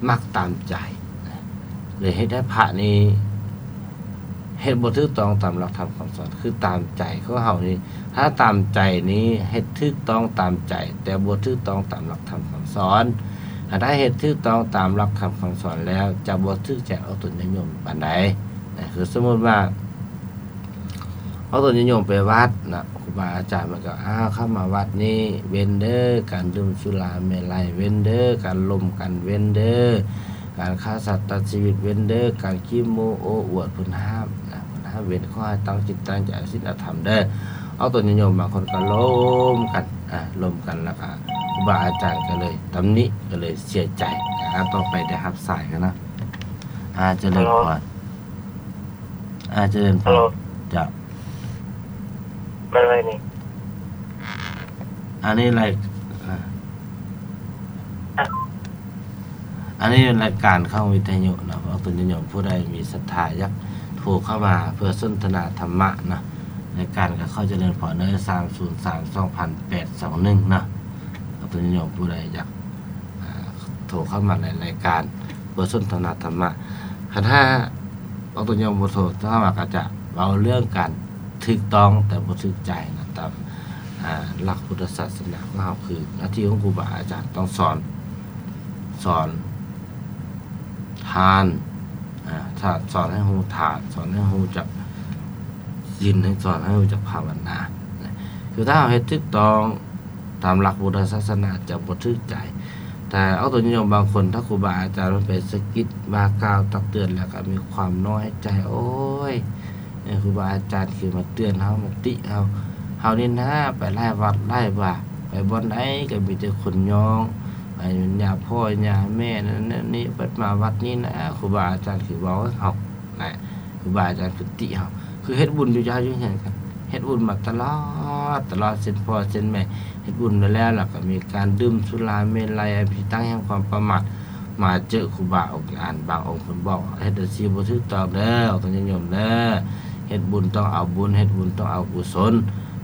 ມັກຕາມໃຈນະ ເລີຍເຮັດໃຫ້ພະນີ້ເຮັດບໍ່ຖືກຕ້ອງຕາມຫຼັກທຳຄຳສອນ. ຄືຕາມໃຈຂອງເຮົານີ້ ຖ້າຕາມໃຈນີ້ເຮັດຖືກຕ້ອງຕາມໃຈ ແຕ່ບໍ່ຖືກຕ້ອງຕາມຫຼັກທຳຄຳສອນ. ຖ້າເຮັດຖືກຕ້ອງຕາມຫຼັກທຳຄຳສອນແລ້ວ ຈະບໍ່ຖືກໃຈອອກຕົນຍາດໂຍມປານໃດນະ. ຄືສົມມຸດວ່າ ເອົາຕົນຍາດໂຍມໄປວັດນະ, ຄູບາອາຈານເພິ່ນກໍ ອ້າວ ເຂົ້າມາວັດນີ້ເວັ້ນເດີ ການດື່ມສຸລາເມໄລ, ເວັ້ນເດີ ການລົມກັນ, ເວັ້ນເດີ ການຂ້າສັດຕັດຊີວິດ, ເວັ້ນເດີ ການຂີ້ໂມ້ໂອ້ອວດ, ເພິ່ນຫ້າມນະ, ເພິ່ນຫ້າມເວັ້ນ. ຂໍໃຫ້ຕັ້ງຈິດຕັ້ງໃຈເອົາສິນເອົາທຳເດີ. ເອົາຕົນຍາດໂຍມບາງຄົນກໍລົມກັນ, ອ່າ ລົມກັນ ແລ້ວກໍຄູບາອາຈານກໍເລີຍຕຳໜິ, ກໍເລີຍເສຍໃຈ. ອ່າ ຕໍ່ໄປໄດ້ຮັບສາຍກັນນະ. ອ່າ ຈະເລີນພອນ. ອ່າ ຈະເລີນພອນ. ເຈົ້າ. ເປັນໄງນີ້? ອັນນີ້ລາຍ ອ່າ ອັນນີ້ລາຍການຂອງວິທະຍຸເນາະ. ອອກຕົນຍາດໂຍມຜູ້ໃດມີສັດທາຢາກໂທເຂົ້າມາເພື່ອສົນທະນາທຳມະເນາະ, ລາຍການກໍຂໍຈະເລີນພອນເດີ ສາມສູນສາມ ສອງພັນແປດ ສອງໜຶ່ງເນາະ. ອອກຕົນຍາດໂຍມຜູ້ໃດຢາກ ອ່າ ໂທເຂົ້າມາໃນລາຍການ ບົດສົນທະນາທຳມະ. ຄັນຖ້າອອກຕົນຍາດໂຍມບໍ່ໂທເຂົ້າມາ ກໍຈະເວົ້າເລື່ອງການຖືກຕ້ອງແຕ່ບໍ່ຖືກໃຈນະ, ຕາມ ອ່າ ຫຼັກພຸດທະສາສະໜາຂອງເຮົາ ຄືໜ້າທີ່ຂອງຄູບາອາຈານຕ້ອງສອນ, ສອນທານ, ອ່າ ສອນໃຫ້ຮູ້ທານ, ສອນໃຫ້ຮູ້ຈັກສິນ, ໃຫ້ ສອນໃຫ້ຮູ້ຈັກພາວະນານະ. ຄືຖ້າເຮົາເຮັດຖືກຕ້ອງ ຕາມຫຼັກພຸດທະສາສະໜາຈະບໍ່ຖືກໃຈ. ແຕ່ອອກຕົນຍາດໂຍມບາງຄົນ ຖ້າຄູບາອາຈານເພິ່ນໄປສະກິດວ່າກ່າວຕັກເຕືອນ ແລ້ວກໍມີຄວາມນ້ອຍໃຈ, ໂອ້ຍ ເອີ ຄູບາອາຈານຄືມາເຕືອນເຮົາ ມາຕິເຮົາ, ເຮົານີ້ນາໄປຫຼາຍວັດຫຼາຍວາ ໄປບ່ອນໃດກໍມີແຕ່ຄົນຍ້ອງ, ໄປຫຍ້າພໍ່ຫຍ້າແມ່ນັ້ນນັ້ນນີ້, ບັດມາວັດນີ້ນະ ຄູບາອາຈານຄືເວົ້າໃຫ້ເຮົາ ນະ, ຄູບາອາຈານຄືຕິເຮົາ, ຄືເຮັດບຸນຢູ່ເຮືອນຢູ່ເຮືອນກັນ, ເຮັດບຸນມາຕະຫຼອດ ຕະຫຼອດ ເຊັ່ນພໍ່ເຊັ່ນແມ່ ເຮັດບຸນໄປແລ້ວ ແລ້ວກໍມີການດື່ມສຸລາເມໄລ ອັນເປັນທີ່ຕັ້ງແຫ່ງຄວາມປະໝາດ. ມາເຈີຄູບາອົງອານ ບາງອົງເພິ່ນບອກ ເຮັດຈັ່ງຊີ້ບໍ່ຖືກຕ້ອງເດີ ອອກຕົນຍາດໂຍມເດີ, ເຮັດບຸນຕ້ອງເອົາບຸນ ເຮັດບຸນຕ້ອງເອົາກຸສົນ,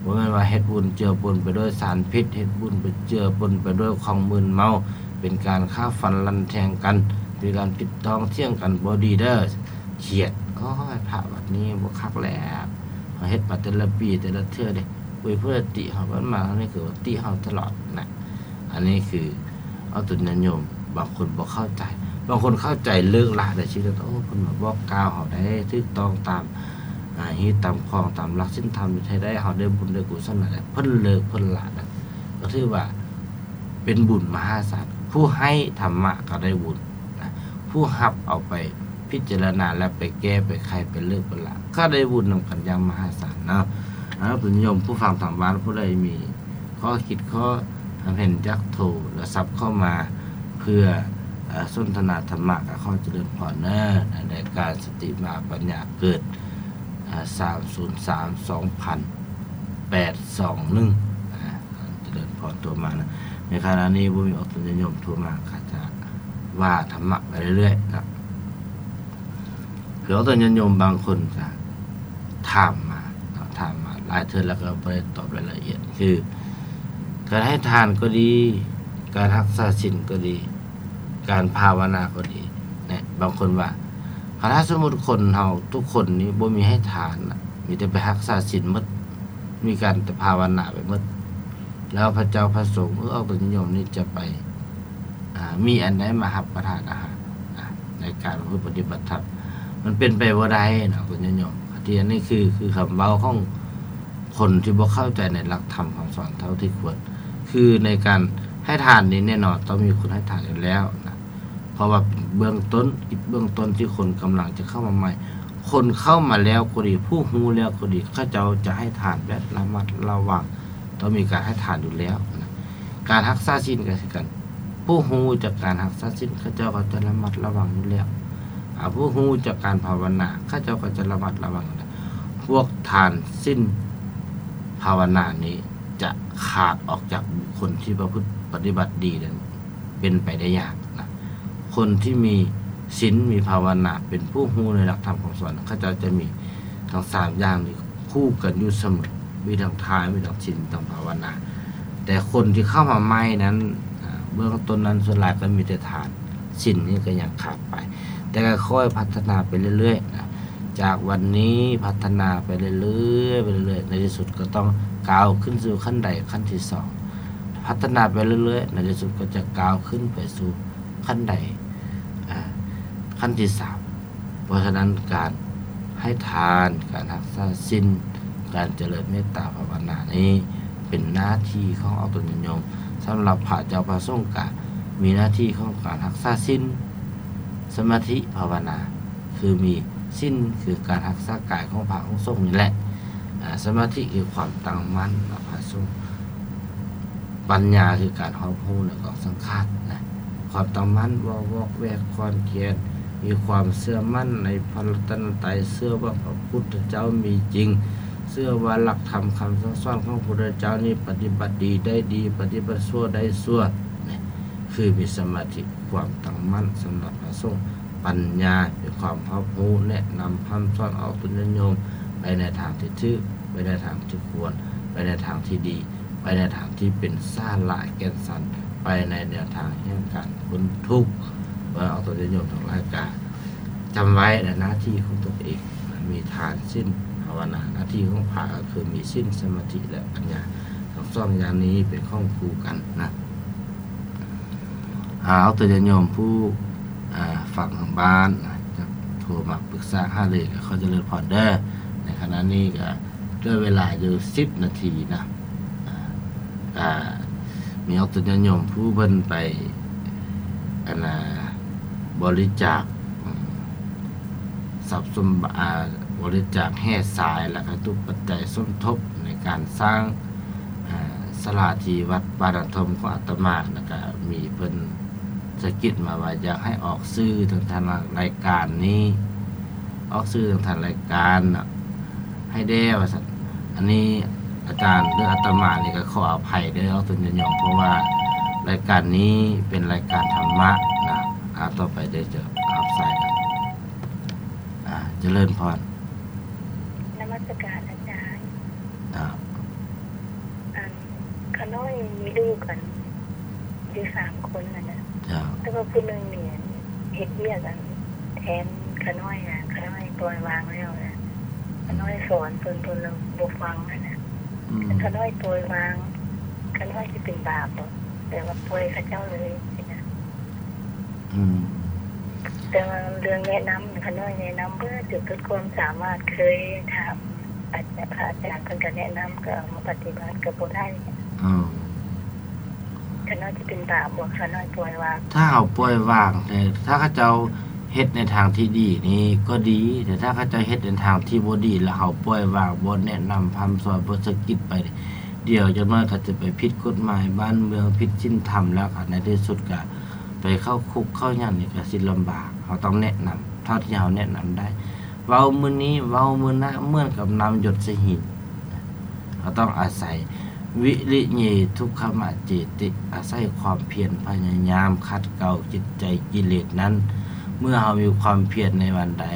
ບໍ່ແມ່ນວ່າເຮັດບຸນເຈືອປົນໄປດ້ວຍສານພິດ, ເຮັດບຸນໄປເຈືອປົນໄປດ້ວຍຂອງມຶນເມົາ, ເປັນການຂ້າຟັນລັນແທງກັນ, ເປັນການຜິດຕ້ອງຖຽງກັນ ບໍ່ດີເດີ. ຄຽດ ໂອ້ຍ ພະວັດນີ້ບໍ່ຄັກແລ້ວ, ເຮົາເຮັດມາແຕ່ລະປີແຕ່ລະເທື່ອເດ້, ໂອ້ຍ ຜູ້ໃດຕິເຮົາ ບັດມາເຮົານີ້ຄືວ່າຕິເຮົາຕະຫຼອດນະ. ອັນນີ້ຄືເອົາຕົນຍາດໂຍມ ບາງຄົນບໍ່ເຂົ້າໃຈ, ບາງຄົນເຂົ້າໃຈເລີກລະໄດ້ຊີວິດ, ໂອ້ ເພິ່ນມາບອກກ່າວເຮົາໄດ້ຖືກຕ້ອງຕາມ ອ່າ ຮີດຕາມຄອງຕາມຫຼັກສິນທຳ ເຮັດໃຫ້ໄດ້ ເຮົາໄດ້ບຸນໄດ້ກຸສົນນັ້ນແຫຼະ, ເພິ່ນເລີກເພິ່ນລະນະ, ກໍຖືວ່າເປັນບຸນມະຫາສານ. ຜູ້ໃຫ້ທຳມະກໍໄດ້ບຸນນະ, ຜູ້ຮັບເອົາໄປພິຈາລະນາ ແລ້ວໄປແກ້ໄປໄຂໄປເລີກໄປລະ ກໍໄດ້ບຸນນຳກັນຢ່າງມະຫາສານເນາະ. ເອົາ ເພື່ອນໂຍມຜູ້ຟັງທາງບ້ານ ຜູ້ໃດມີຂໍ້ຄິດຂໍ້ຄຳເຫັນ ຢາກໂທລະສັບເຂົ້າມາເພື່ອ ເອີ ສົນທະນາທຳມະ ກໍຂໍຈະເລີນພອນເນີ ໃນລາຍການສະຕິມາປັນຍາເກີດ ເອີ ສາມສູນສາມ ສອງພັນແປດ ສອງໜຶ່ງ ອາ ຈະເລີນພອນໂທມານະ. ໃນຂະນະນີ້ບໍ່ມີອອກຕົນຍາດໂຍມໂທມາ ຂ້າຈະວ່າທຳມະໄປເລື້ອຍໆນະ. ຄືອອກຕົນຍາດໂຍມບາງຄົນກະຖາມມາເນາະ, ຖາມມາຫຼາຍເທື່ອແລ້ວກໍບໍ່ໄດ້ຕອບລາຍລະອຽດ. ຄືການໃຫ້ທານກໍດີ, ການຮັກສາສິນກໍດີ, ການພາວະນາກໍດີນະ, ບາງຄົນວ່າ ຖ້າສົມມຸດຄົນເຮົາທຸກຄົນນີ້ບໍ່ມີໃຫ້ທານນະ, ມີແຕ່ໄປຮັກສາສິນໝົດ, ມີການແຕ່ພາວະນາໄປໝົດ, ແລ້ວພະເຈົ້າພະສົງ ເອີ ອອກຕົນຍາດໂຍມນີ້ຈະໄປ ອ່າ ມີອັນໃດມາຮັບປະທານອາຫານ ອ່າ ໃນການປະພຶດປະຕິບັດທຳ? ມັນເປັນໄປບໍ່ໄດ້ເນາະ ອອກຕົນຍາດໂຍມ. ທີ່ອັນນີ້ຄື ຄືຄຳເວົ້າຂອງ ຄົນທີ່ບໍ່ເຂົ້າໃຈໃນຫຼັກທຳຄຳສອນເທົ່າທີ່ຄວນ. ຄືໃນການໃຫ້ທານນີ້ແນ່ນອນຕ້ອງມີຄົນໃຫ້ທານຢູ່ແລ້ວນະ, ເພາະວ່າເປັນເບື້ອງຕົ້ນ, ເບື້ອງຕົ້ນທີ່ຄົນກຳລັງຈະເຂົ້າມາໃໝ່. ຄົນເຂົ້າມາແລ້ວກໍດີ, ຜູ້ຮູ້ແລ້ວກໍດີ, ເຂົາເຈົ້າຈະໃຫ້ທານແບບລະມັດລະວັງ, ຕ້ອງມີການໃຫ້ທານຢູ່ແລ້ວນະ. ການຮັກສາສິນກໍຄືກັນ, ຜູ້ຮູ້ຈາກການຮັກສາສິນ ເຂົາເຈົ້າກໍຈະລະມັດລະວັງຢູ່ແລ້ວ. ອາ ຜູ້ຮູ້ຈາກການພາວະນາ ເຂົາເຈົ້າກໍຈະລະມັດລະວັງຢູ່ແລ້ວ. ພວກທານ ສິນ ພາວະນານີ້ ຈະຂາດອອກຈາກບຸກຄົນທີ່ປະພຶດປະຕິບັດດີນັ້ນ ເປັນໄປໄດ້ຍາກນະ. ຄົນທີ່ມີສິນ ມີພາວະນາ ເປັນຜູ້ຮູ້ໃນຫຼັກທຳຄຳສອນ ເຂົາເຈົ້າຈະມີທັງສາມຢ່າງນີ້ຄູ່ກັນຢູ່ສະເໝີ, ມີທັງທານ ມີທັງສິນ ທັງພາວະນາ. ແຕ່ຄົນທີ່ເຂົ້າມາໃໝ່ນັ້ນ ອາ ເບື້ອງຕົ້ນນັ້ນ ສ່ວນຫຼາຍກໍມີແຕ່ທານ, ສິນນີ້ກໍຍັງຂາດໄປ. ແຕ່ກໍຄ່ອຍພັດທະນາໄປເລື້ອຍໆນະ, ຈາກວັນນີ້ພັດທະນາໄປເລື້ອຍໆ ໄປເລື້ອຍໆ ໃນທີ່ສຸດກໍຕ້ອງກ້າວຂຶ້ນສູ່ຂັ້ນໄດຂັ້ນທີສອງ. ພັດທະນາໄປເລື້ອຍໆ ໃນທີ່ສຸດກໍຈະກ້າວຂຶ້ນໄປສູ່ຂັ້ນໄດ ອາ ຂັ້ນທີສາມ. ເພາະສະນັ້ນ ການໃຫ້ທານ, ການຮັກສາສິນ, ການຈະເລີນເມດຕາພາວະນານີ້ ເປັນໜ້າທີ່ຂອງອອກຕົນຍາດໂຍມ. ສຳລັບພະເຈົ້າພະສົງກະມີໜ້າທີ່ຂອງການຮັກສາສິນ, ສະມາທິ, ພາວະນາ. ຄືມີສິນ ຄືການຮັກສາກາຍຂອງພະຂອງສົງນີ້ແຫຼະ, ອາ ສະມາທິ ຄືຄວາມຕັ້ງໝັ້ນ ພະສົງ, ປັນຍາ ຄືການຮອບຮູ້ໃນກອງສັງຂານນະ, ຄວາມຕັ້ງໝັ້ນ ບໍ່ວອກແວກຄອນແຄນ, ມີຄວາມເຊື່ອໝັ້ນໃນພະລັດຕະນະໄຕ, ເຊື່ອວ່າພະພຸດທະເຈົ້າມີຈິງ, ເຊື່ອວ່າຫຼັກທຳຄຳສັ່ງສອນຂອງພະພຸດທະເຈົ້ານີ້ປະຕິບັດດີໄດ້ດີ, ປະຕິບັດຊົ່ວໄດ້ຊົ່ວ, ຄືມີສະມາທິ ຄວາມຕັ້ງໝັ້ນສຳລັບພະສົງ, ປັນຍາ ເປັນຄວາມຮອບຮູ້ ແນະນຳພຳສອນອອກຕົນຍາດໂຍມໄປໃນທາງທີ່ຖືກ, ໄປໃນທາງທີ່ຄວນ, ໄປໃນທາງທີ່ດີ, ໄປໃນທາງທີ່ເປັນສາລະແກ່ນສັນ, ໄປໃນແນວທາງແຫ່ງການພົ້ນທຸກ. ເອີ ອອກຕົນຍາດໂຍມທັງຫຼາຍກະຈຳໄວ້ໃນໜ້າທີ່ຂອງຕົນເອງ, ມີທານ, ສິນ, ພາວະນາ. ໜ້າທີ່ຂອງພະກໍຄືມີສິນ, ສະມາທິ ແລະ ປັນຍາ, ທັງສອງຢ່າງນີ້ເປັນຂອງຄູ່ກັນນະ. ອາ ອອກຕົນຍາດໂຍມຜູ້ ອາ ຟັງທາງບ້ານ ຈະໂທມາປຶກສາຫາລື ກໍຂໍຈະເລີນພອນເດີ. ໃນຂະນະນີ້ກໍເຫຼືອເວລາຢູ່ສິບນາທີນະ, ອາ ກໍມີອອກຕົນຍາດໂຍມຜູ້ເພິ່ນໄປ ອັນນ່າ ບໍລິຈາກ ອາ ຊັບສົມ ອາ ບໍລິຈາກແຮ່ຊາຍ ແລ້ວກໍວັດຖຸປັດໄຈສົມທົບໃນການສ້າງ ອາ ສາລາທີ່ວັດປ່ານາທົ່ມຂອງອາດຕະມາ, ແລ້ວກະມີເພິ່ນສະກິດມາວ່າຢາກໃຫ້ອອກຊື່ທາງ ທາງລາຍການນີ້, ອອກຊື່ທາງ ທາງລາຍການນະ ໃຫ້ແດ່ວ່າຊັ້ນ. ອັນນີ້ອາຈານ ຫຼື ອາດຕະມານີ້ກໍຂໍອະໄພເດີ ອອກຕົນຍາດໂຍມ, ເພາະວ່າລາຍການນີ້ເປັນລາຍການທຳມະນະ. ອາ ຕໍ່ໄປເດີ ຈະຮັບສາຍກັນ. ອາ ຈະເລີນພອນ. ນະມັດສະການອາຈານ. ເຈົ້າ. ອັນ ຂ້ານ້ອຍມີລູກ ອັນ ຢູ່ສາມຄົນຫັ້ນນະ. ເຈົ້າ. ແຕ່ວ່າຜູ້ໜຶ່ງນີ້ ອັນ ເຮັດວຽກ ອັນ ແທນຂ້ານ້ອຍນະ, ຂ້ານ້ອຍປ່ອຍວາງແລ້ວນະ. ອືມ. ຂ້ານ້ອຍສອນເພິ່ນ ເພິ່ນລະບໍ່ຟັງຫັ້ນນະ. ອືມ. ຄັນຂ້ານ້ອຍປ່ອຍວາງ ຂ້ານ້ອຍຊິເປັນບາບບໍ່? ແບບວ່າປ່ອຍເຂົາເຈົ້າເລີຍຊີ້ນະ. ອືມ. ແຕ່ວ່າເລື່ອງແນະນຳ ຂ້ານ້ອຍແນະນຳເບິດ ຈົນສຸດຄວາມສາມາດ, ເຄີຍຖາມອາຈານ ພະອາຈານເພິ່ນກໍແນະນຳ ກໍເອົາມາປະຕິບັດກໍບໍ່ໄດ້. ເອີ. ຂ້ານ້ອຍຊິເປັນບາບບໍ່ ຂ້ານ້ອຍປ່ອຍວາງ? ຖ້າເຮົາປ່ອຍວາງ ແຕ່ຖ້າເຂົາເຈົ້າເຮັດໃນທາງທີ່ດີນີ້ກໍດີ, ແຕ່ຖ້າເຂົາເຈົ້າເຮັດໃນທາງທີ່ບໍ່ດີ ແລ້ວເຮົາປ່ອຍວາງ ບໍ່ແນະນຳພະຮ່ຳສອນ ບໍ່ສະກິດໄປ, ດຽວຈັກໜ້ອຍກໍຈະໄປຜິດກົດໝາຍບ້ານເມືອງ, ຜິດສິນທຳ ແລ້ວກໍໃນທີ່ສຸດກໍ ໄປເຂົ້າຄຸກເຂົ້າຫຍັງນີ້ກໍຊິລຳບາກ. ເຮົາຕ້ອງແນະນຳເທົ່າທີ່ເຮົາແນະນຳໄດ້. ເວົ້າມື້ນີ້ ເວົ້າມື້ໜ້າ ເໝືອນກັບນ້ຳຢົດໃສ່ຫີນ. ເຮົາຕ້ອງອາໄສ ວິລິເຍ ທຸກຂະມະເຈຕິ, ອາໄສຄວາມພຽນພະຍາຍາມຂັດເກົາຈິດໃຈກິເລດນັ້ນ. ເມື່ອເຮົາມີຄວາມພຽນໃນວັນໃດ,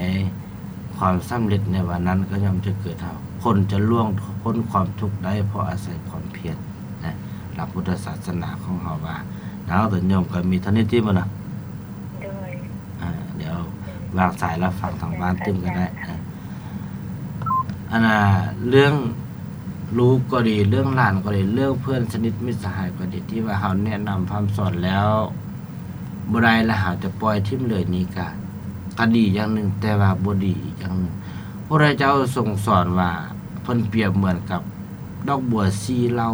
ຄວາມສຳເລັດໃນວັນນັ້ນກໍຍ່ອມຈະເກີດເຮົາ. ຄົນຈະລ່ວງພົ້ນຄວາມທຸກໄດ້ ເພາະອາໄສຄວາມພຽນນະ. ຫຼັກພຸດທະສາສະໜາຂອງເຮົາວ່າ. ເອົາ ໂຍມກໍມີເທົ່ານີ້ຕິ ມື້ນະ? ໂດຍ. ອ່າ ດຽວວາງສາຍແລ້ວຟັງທາງບ້ານຕື່ມກໍໄດ້. ອັນນ່າ ເລື່ອງລູກກໍດີ ເລື່ອງຫຼານກໍດີ ເລື່ອງເພື່ອນສະໜິດມິດສະຫາຍກໍດີ ທີ່ວ່າເຮົາແນະນຳພະຮ່ຳສອນແລ້ວ ບໍ່ໄດ້ ແລ້ວເຮົາຈະປ່ອຍຖິ້ມເລີຍນີ້ກະ ກະດີຢ່າງໜຶ່ງ, ແຕ່ວ່າບໍ່ດີອີກຢ່າງໜຶ່ງ. ພະພຸດທະເຈົ້າຊົງສອນວ່າ ເພິ່ນປຽບເໝືອນກັບດອກບົວສີ່ເຫຼົ່າ.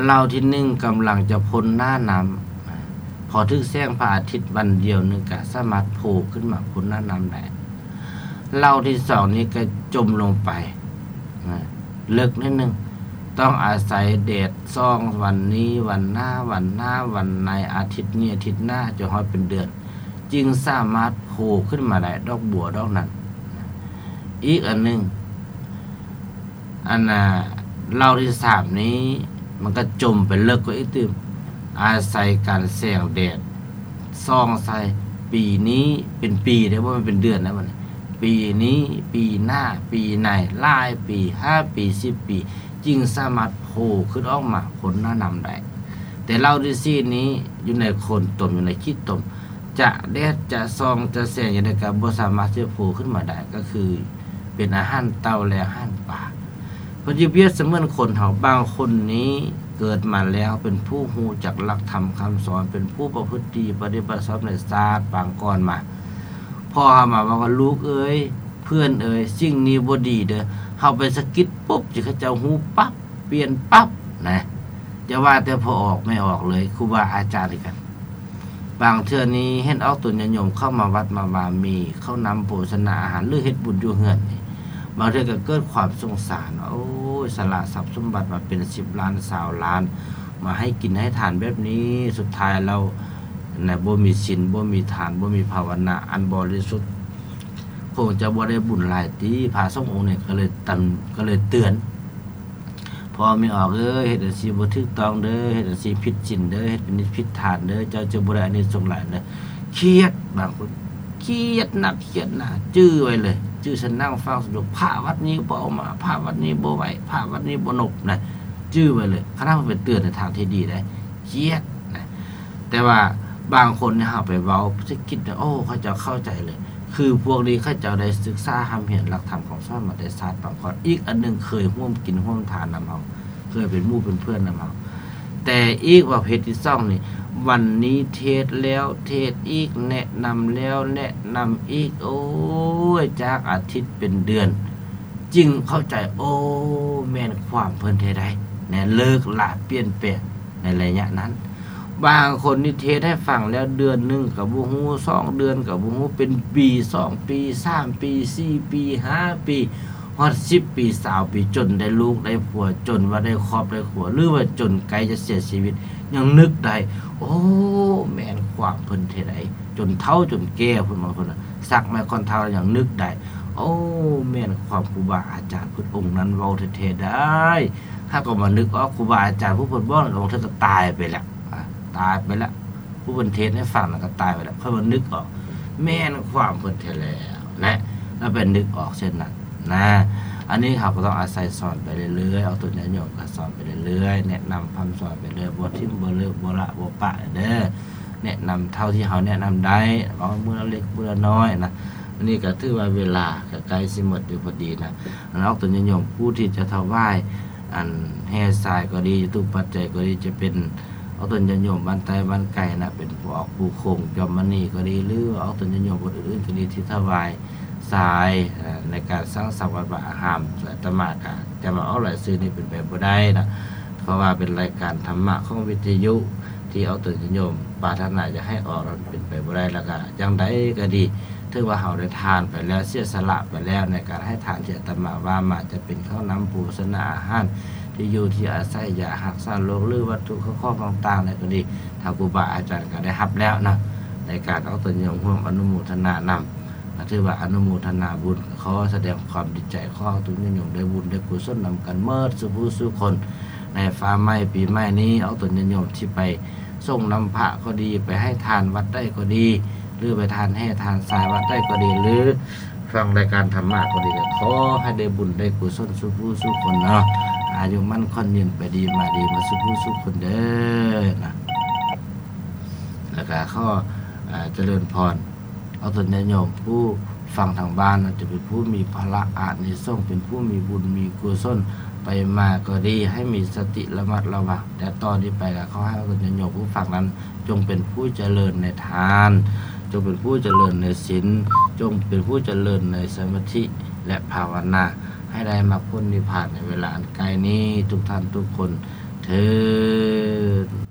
ເຫຼົ່າທີໜຶ່ງກຳລັງຈະພົ້ນໜ້ານ້ຳ, ພໍຖືກແສງພະອາທິດວັນດຽວໜຶ່ງກະສາມາດໂຜຂຶ້ນມາພົ້ນໜ້ານ້ຳໄດ້. ເຫຼົ່າທີສອງນີ້ກະຈົມລົງໄປ ນະ ເລິກໜ້ອຍໜຶ່ງ, ຕ້ອງອາໄສແດດສ່ອງວັນນີ້ວັນໜ້າ ວັນໜ້າວັນໃນ ອາທິດນີ້ອາທິດໜ້າ ຈົນຮອດເປັນເດືອນ ຈຶ່ງສາມາດໂຜຂຶ້ນມາໄດ້ ດອກບົວດອກນັ້ນ. ອີກອັນໜຶ່ງ ອັນນ່າ ເຫຼົ່າທີສາມນີ້ ມັນກໍຈົມໄປເລິກກວ່າອີກຕື່ມ ອາໄສການແສງແດດສ່ອງໃສ່. ປີນີ້ເປັນປີເດ້ ບໍ່ແມ່ນເປັນເດືອນນະບັດນີ້. ປີນີ້ ປີໜ້າ ປີໃນ ຫຼາຍປີ ຫ້າປີ ສິບປີ ຈຶ່ງສາມາດໂຜຂຶ້ນອອກມາພົ້ນໜ້ານ້ຳໄດ້. ແຕ່ເຫຼົ່າທີສີ່ນີ້ ຢູ່ໃນໂຄນຕົມ ຢູ່ໃນຂີ້ຕົມ ຈະແດດຈະສ່ອງຈະແສງຈັ່ງໃດກໍບໍ່ສາມາດທີ່ຈະໂຜຂຶ້ນມາໄດ້ ກໍຄືເປັນອາຫານເຕົ່າ ແລະ ອາຫານປາ. ເພິ່ນຈະປຽບສະເໝືອນຄົນເຮົາ ບາງຄົນນີ້ເກີດມາແລ້ວເປັນຜູ້ຮູ້ຈັກຫຼັກທຳຄຳສອນ ເປັນຜູ້ປະພຶດດີປະຕິບັດຊອບໃນຊາດປາງກ່ອນມາ. ພໍ່ເຮົາມາເວົ້າວ່າ ລູກເອີຍ ເພື່ອນເອີຍ ສິ່ງນີ້ບໍ່ດີເດີ. ເຮົາໄປສະກິດປຸບ ຊິເຂົາເຈົ້າຮູ້ປັບ ປ່ຽນປັບນະ. ຢ່າວ່າແຕ່ພໍ່ອອກແມ່ອອກເລີຍ ຄູບາອາຈານຄືກັນ. ບາງເທື່ອນີ້ເຫັນອອກຕົນຍາດໂຍມເຂົ້າມາວັດມາວາ ມີເຂົ້ານ້ຳໂພຊະນາອາຫານ ຫຼື ເຮັດບຸນຢູ່ເຮືອນນີ້ ບາງເທື່ອກໍເກີດຄວາມສົງສານວ່າ ໂອ້ຍ ສະຫຼະຊັບສົມບັດມາເປັນສິບລ້ານຊາວລ້ານ ມາໃຫ້ກິນໃຫ້ທານແບບນີ້ ສຸດທ້າຍແລ້ວນະ ບໍ່ມີສິນ ບໍ່ມີທານ ບໍ່ມີພາວະນາອັນບໍລິສຸດ ຄົງຈະບໍ່ໄດ້ບຸນຫຼາຍຕິ. ພະສົງອົງນີ້ກໍເລີຍຕັນ ກໍເລີຍເຕືອນ ພໍ່ແມ່ອອກເອີຍ ເຮັດຈັ່ງຊີ້ບໍ່ຖືກຕ້ອງເດີ ເຮັດຈັ່ງຊີ້ຜິດສິນເດີ ເຮັດຜິດນິດຜິດທານເດີ ເຈົ້າຈະບໍ່ໄດ້ອານິສົງຫຼາຍເດີ. ຄຽດ ບາງຄົນຄຽດໜັກຄຽດໜາ ຈື່ໄວ້ເລີຍ ຈື່ສະນັ່ງຟັງສະດຸ ພະວັດນີ້ບໍ່ເອົາມາ ພະວັດນີ້ບໍ່ໄຫວ້ ພະວັດນີ້ບໍ່ນົບນະ ຈື່ໄວ້ເລີຍ. ຄັນເຮົາໄປເຕືອນໃນທາງທີ່ດີໄດ້ ຄຽດນະ. ແຕ່ວ່າບາງຄົນນີ້ເຮົາໄປເວົ້າສະກິດນະ ໂອ້ ເຂົາເຈົ້າເຂົ້າໃຈເລີຍ. ຄືພວກນີ້ເຂົາເຈົ້າໄດ້ສຶກສາຮ່ຳຮຽນຫຼັກທຳຄຳສອນມາແຕ່ຊາດປາງກ່ອນ. ອີກອັນໜຶ່ງ ເຄີຍຮ່ວມກິນຮ່ວມທານນຳເຮົາ ເຄີຍເປັນໝູ່ເປັນເພື່ອນນຳເຮົາ. ແຕ່ອີກປະເພດທີສອງນີ້ ວັນນີ້ເທດແລ້ວເທດອີກ ແນະນຳແລ້ວແນະນຳອີກ ໂອ້ຍ ຈາກອາທິດເປັນເດືອນ ຈຶ່ງເຂົ້າໃຈ ໂອ້ ແມ່ນຄວາມເພິ່ນແທ້ໃດ໋ ແນະ ເລີກລະປ່ຽນແປງໃນໄລຍະນັ້ນ. ບາງຄົນນີ້ເທດໃຫ້ຟັງແລ້ວເດືອນໜຶ່ງກໍບໍ່ຮູ້ ສອງເດືອນກໍບໍ່ຮູ້ ເປັນປີ ສອງປີ ສາມປີ ສີ່ປີ ຫ້າປີ ຮອດສິບປີ ຊາວປີ ຈົນໄດ້ລູກໄດ້ຜົວ ຈົນວ່າໄດ້ຄອບໄດ້ຄົວ ຫຼືວ່າຈົນໃກ້ຈະເສຍຊີວິດ ຍັງນຶກໄດ້ ໂອ້ ແມ່ນຄວາມເພິ່ນແທ້ໃດ໋ ຈົນເຖົ້າຈົນແກ່ພຸ້ນ ບາງຄົນນະ ສັກໄມ້ຂ້ອນເທົ້າຍັງນຶກໄດ້ ໂອ້ ແມ່ນຄວາມຄູບາອາຈານພຸດອົງນັ້ນເວົ້າແທ້ໆໄດ໋. ຫາກກໍມານຶກອອກ ຄູບາອາຈານຜູ້ເພິ່ນບອກນັ້ນ ບາງເທື່ອກໍຕາຍໄປແລ້ວ ອາ ຕາຍໄປແລ້ວ ຜູ້ເພິ່ນເທດໃຫ້ຟັງນັ້ນກໍຕາຍໄປແລ້ວ ຄ່ອຍມານຶກອອກ ແມ່ນຄວາມເພິ່ນແທ້ແລ້ວນະ ແລ້ວໄປນຶກອອກເຊັ່ນນັ້ນນະ. ອັນນີ້ເຮົາກໍຕ້ອງອາໄສສອນໄປເລື້ອຍໆ ອອກຕົນຍາດໂຍມກໍສອນໄປເລື້ອຍໆ ແນະນຳພຳສອນໄປເລື້ອຍ ບໍ່ຖິ້ມບໍ່ເລີກ ບໍ່ລະບໍ່ປະເດີ້. ແນະນຳເທົ່າທີ່ເຮົາແນະນຳໄດ້ ເວົ້າມື້ລະເລັກມື້ລະນ້ອຍນະ. ອັນນີ້ກໍຖືວ່າເວລາກໍໃກ້ຊິໝົດຢູ່ພໍດີນະ. ອັນອອກຕົນຍາດໂຍມຜູ້ທີ່ຈະຖວາຍ ອັນແຮ່ຊາຍກໍດີ ຈະຕຸປັດໄຈກໍດີ ຈະເປັນອອກຕົນຍາດໂຍມບ້ານໃຕ້ບ້ານໄກນະ ເປັນຜູ້ອອກຜູ້ຄົງ ຈອມມະນີກໍດີ ຫຼືວ່າອອກຕົນຍາດໂຍມຄົນອື່ນໆກໍດີ ທີ່ຖວາຍຊາຍ ເອີ ໃນການສ້າງສັງວັດວາອາຮາມ ອາດຕະມາກະຈະມາອອກລາຍຊື່ນີ້ເປັນໄປບໍ່ໄດ້ນະ ເພາະວ່າເປັນລາຍການທຳມະຂອງວິທະຍຸ ທີ່ອອກຕົນຍາດໂຍມປາດຖະໜາຢາກໃຫ້ອອກນັ້ນເປັນໄປບໍ່ໄດ້. ແລ້ວກະຢ່າງໃດກໍດີ ຖືວ່າເຮົາໄດ້ທານໄປແລ້ວ ເສຍສະຫຼະໄປແລ້ວ ໃນການໃຫ້ທານທີ່ອາດຕະມາວ່າມາ ຈະເປັນເຂົ້ານ້ຳໂພຊະນາອາຫານ ທີ່ຢູ່ທີ່ອາໄສ ຢາຮັກສາໂລກ ຫຼື ວັດຖຸເຂົ້າຂອງຕ່າງໆໃດກໍດີ ທາງຄູບາອາຈານກໍໄດ້ຮັບແລ້ວເນາະ ໃນການອອກຕົນຍາດໂຍມຮ່ວມອະນຸໂມທະນານຳ ກໍຖືວ່າອະນຸໂມທະນາບຸນ ຂໍສະແດງຄວາມດີໃຈ ຂໍໃຫ້ອອກຕົນຍາດໂຍມໄດ້ບຸນໄດ້ກຸສົນນຳກັນໝົດສູ່ຜູ້ສູ່ຄົນ ໃນຟ້າໃໝ່ປີໃໝ່ນີ້ ອອກຕົນຍາດໂຍມທີ່ໄປ ສົ່ງນ້ຳພະກໍດີ ໄປໃຫ້ທານວັດໃດກໍດີ ຫຼື ໄປທານແຮ່ທານຊາຍວັດໃດກໍດີ ຫຼື ຟັງລາຍການທຳມະກໍດີ ກໍຂໍໃຫ້ໄດ້ບຸນໄດ້ກຸສົນສູ່ຜູ້ສູ່ຄົນເນາະ ອາຍຸໝັ້ນຂວັນຍືນ ໄປດີມາດີໝົດສູ່ຜູ້ສູ່ຄົນເດີ້ນະ. ແລ້ວກໍຂໍ ເອີ ຈະເລີນພອນ ອອກຕົນຍາດໂຍມຜູ້ຟັງທາງບ້ານນັ້ນ ຈະເປັນຜູ້ມີພະລະອານິສົງ ເປັນຜູ້ມີບຸນມີກຸສົນໄປມາກໍດີ ໃຫ້ມີສະຕິລະມັດລະວັງ. ແຕ່ຕໍ່ນີ້ໄປກໍຂໍໃຫ້ອອກຕົນຍາດໂຍມຜູ້ຟັງນັ້ນ ຈົ່ງເປັນຜູ້ຈະເລີນໃນທານ, ຈົ່ງເປັນຜູ້ຈະເລີນໃນສິນ, ຈົ່ງເປັນຜູ້ຈະເລີນໃນສະມາທິ ແລະ ພາວະນາ ໃຫ້ໄດ້ມັກຜົນນິບພານໃນເວລາອັນໃກ້ນີ້ ທຸກທ່ານທຸກຄົນເທີ້ນ.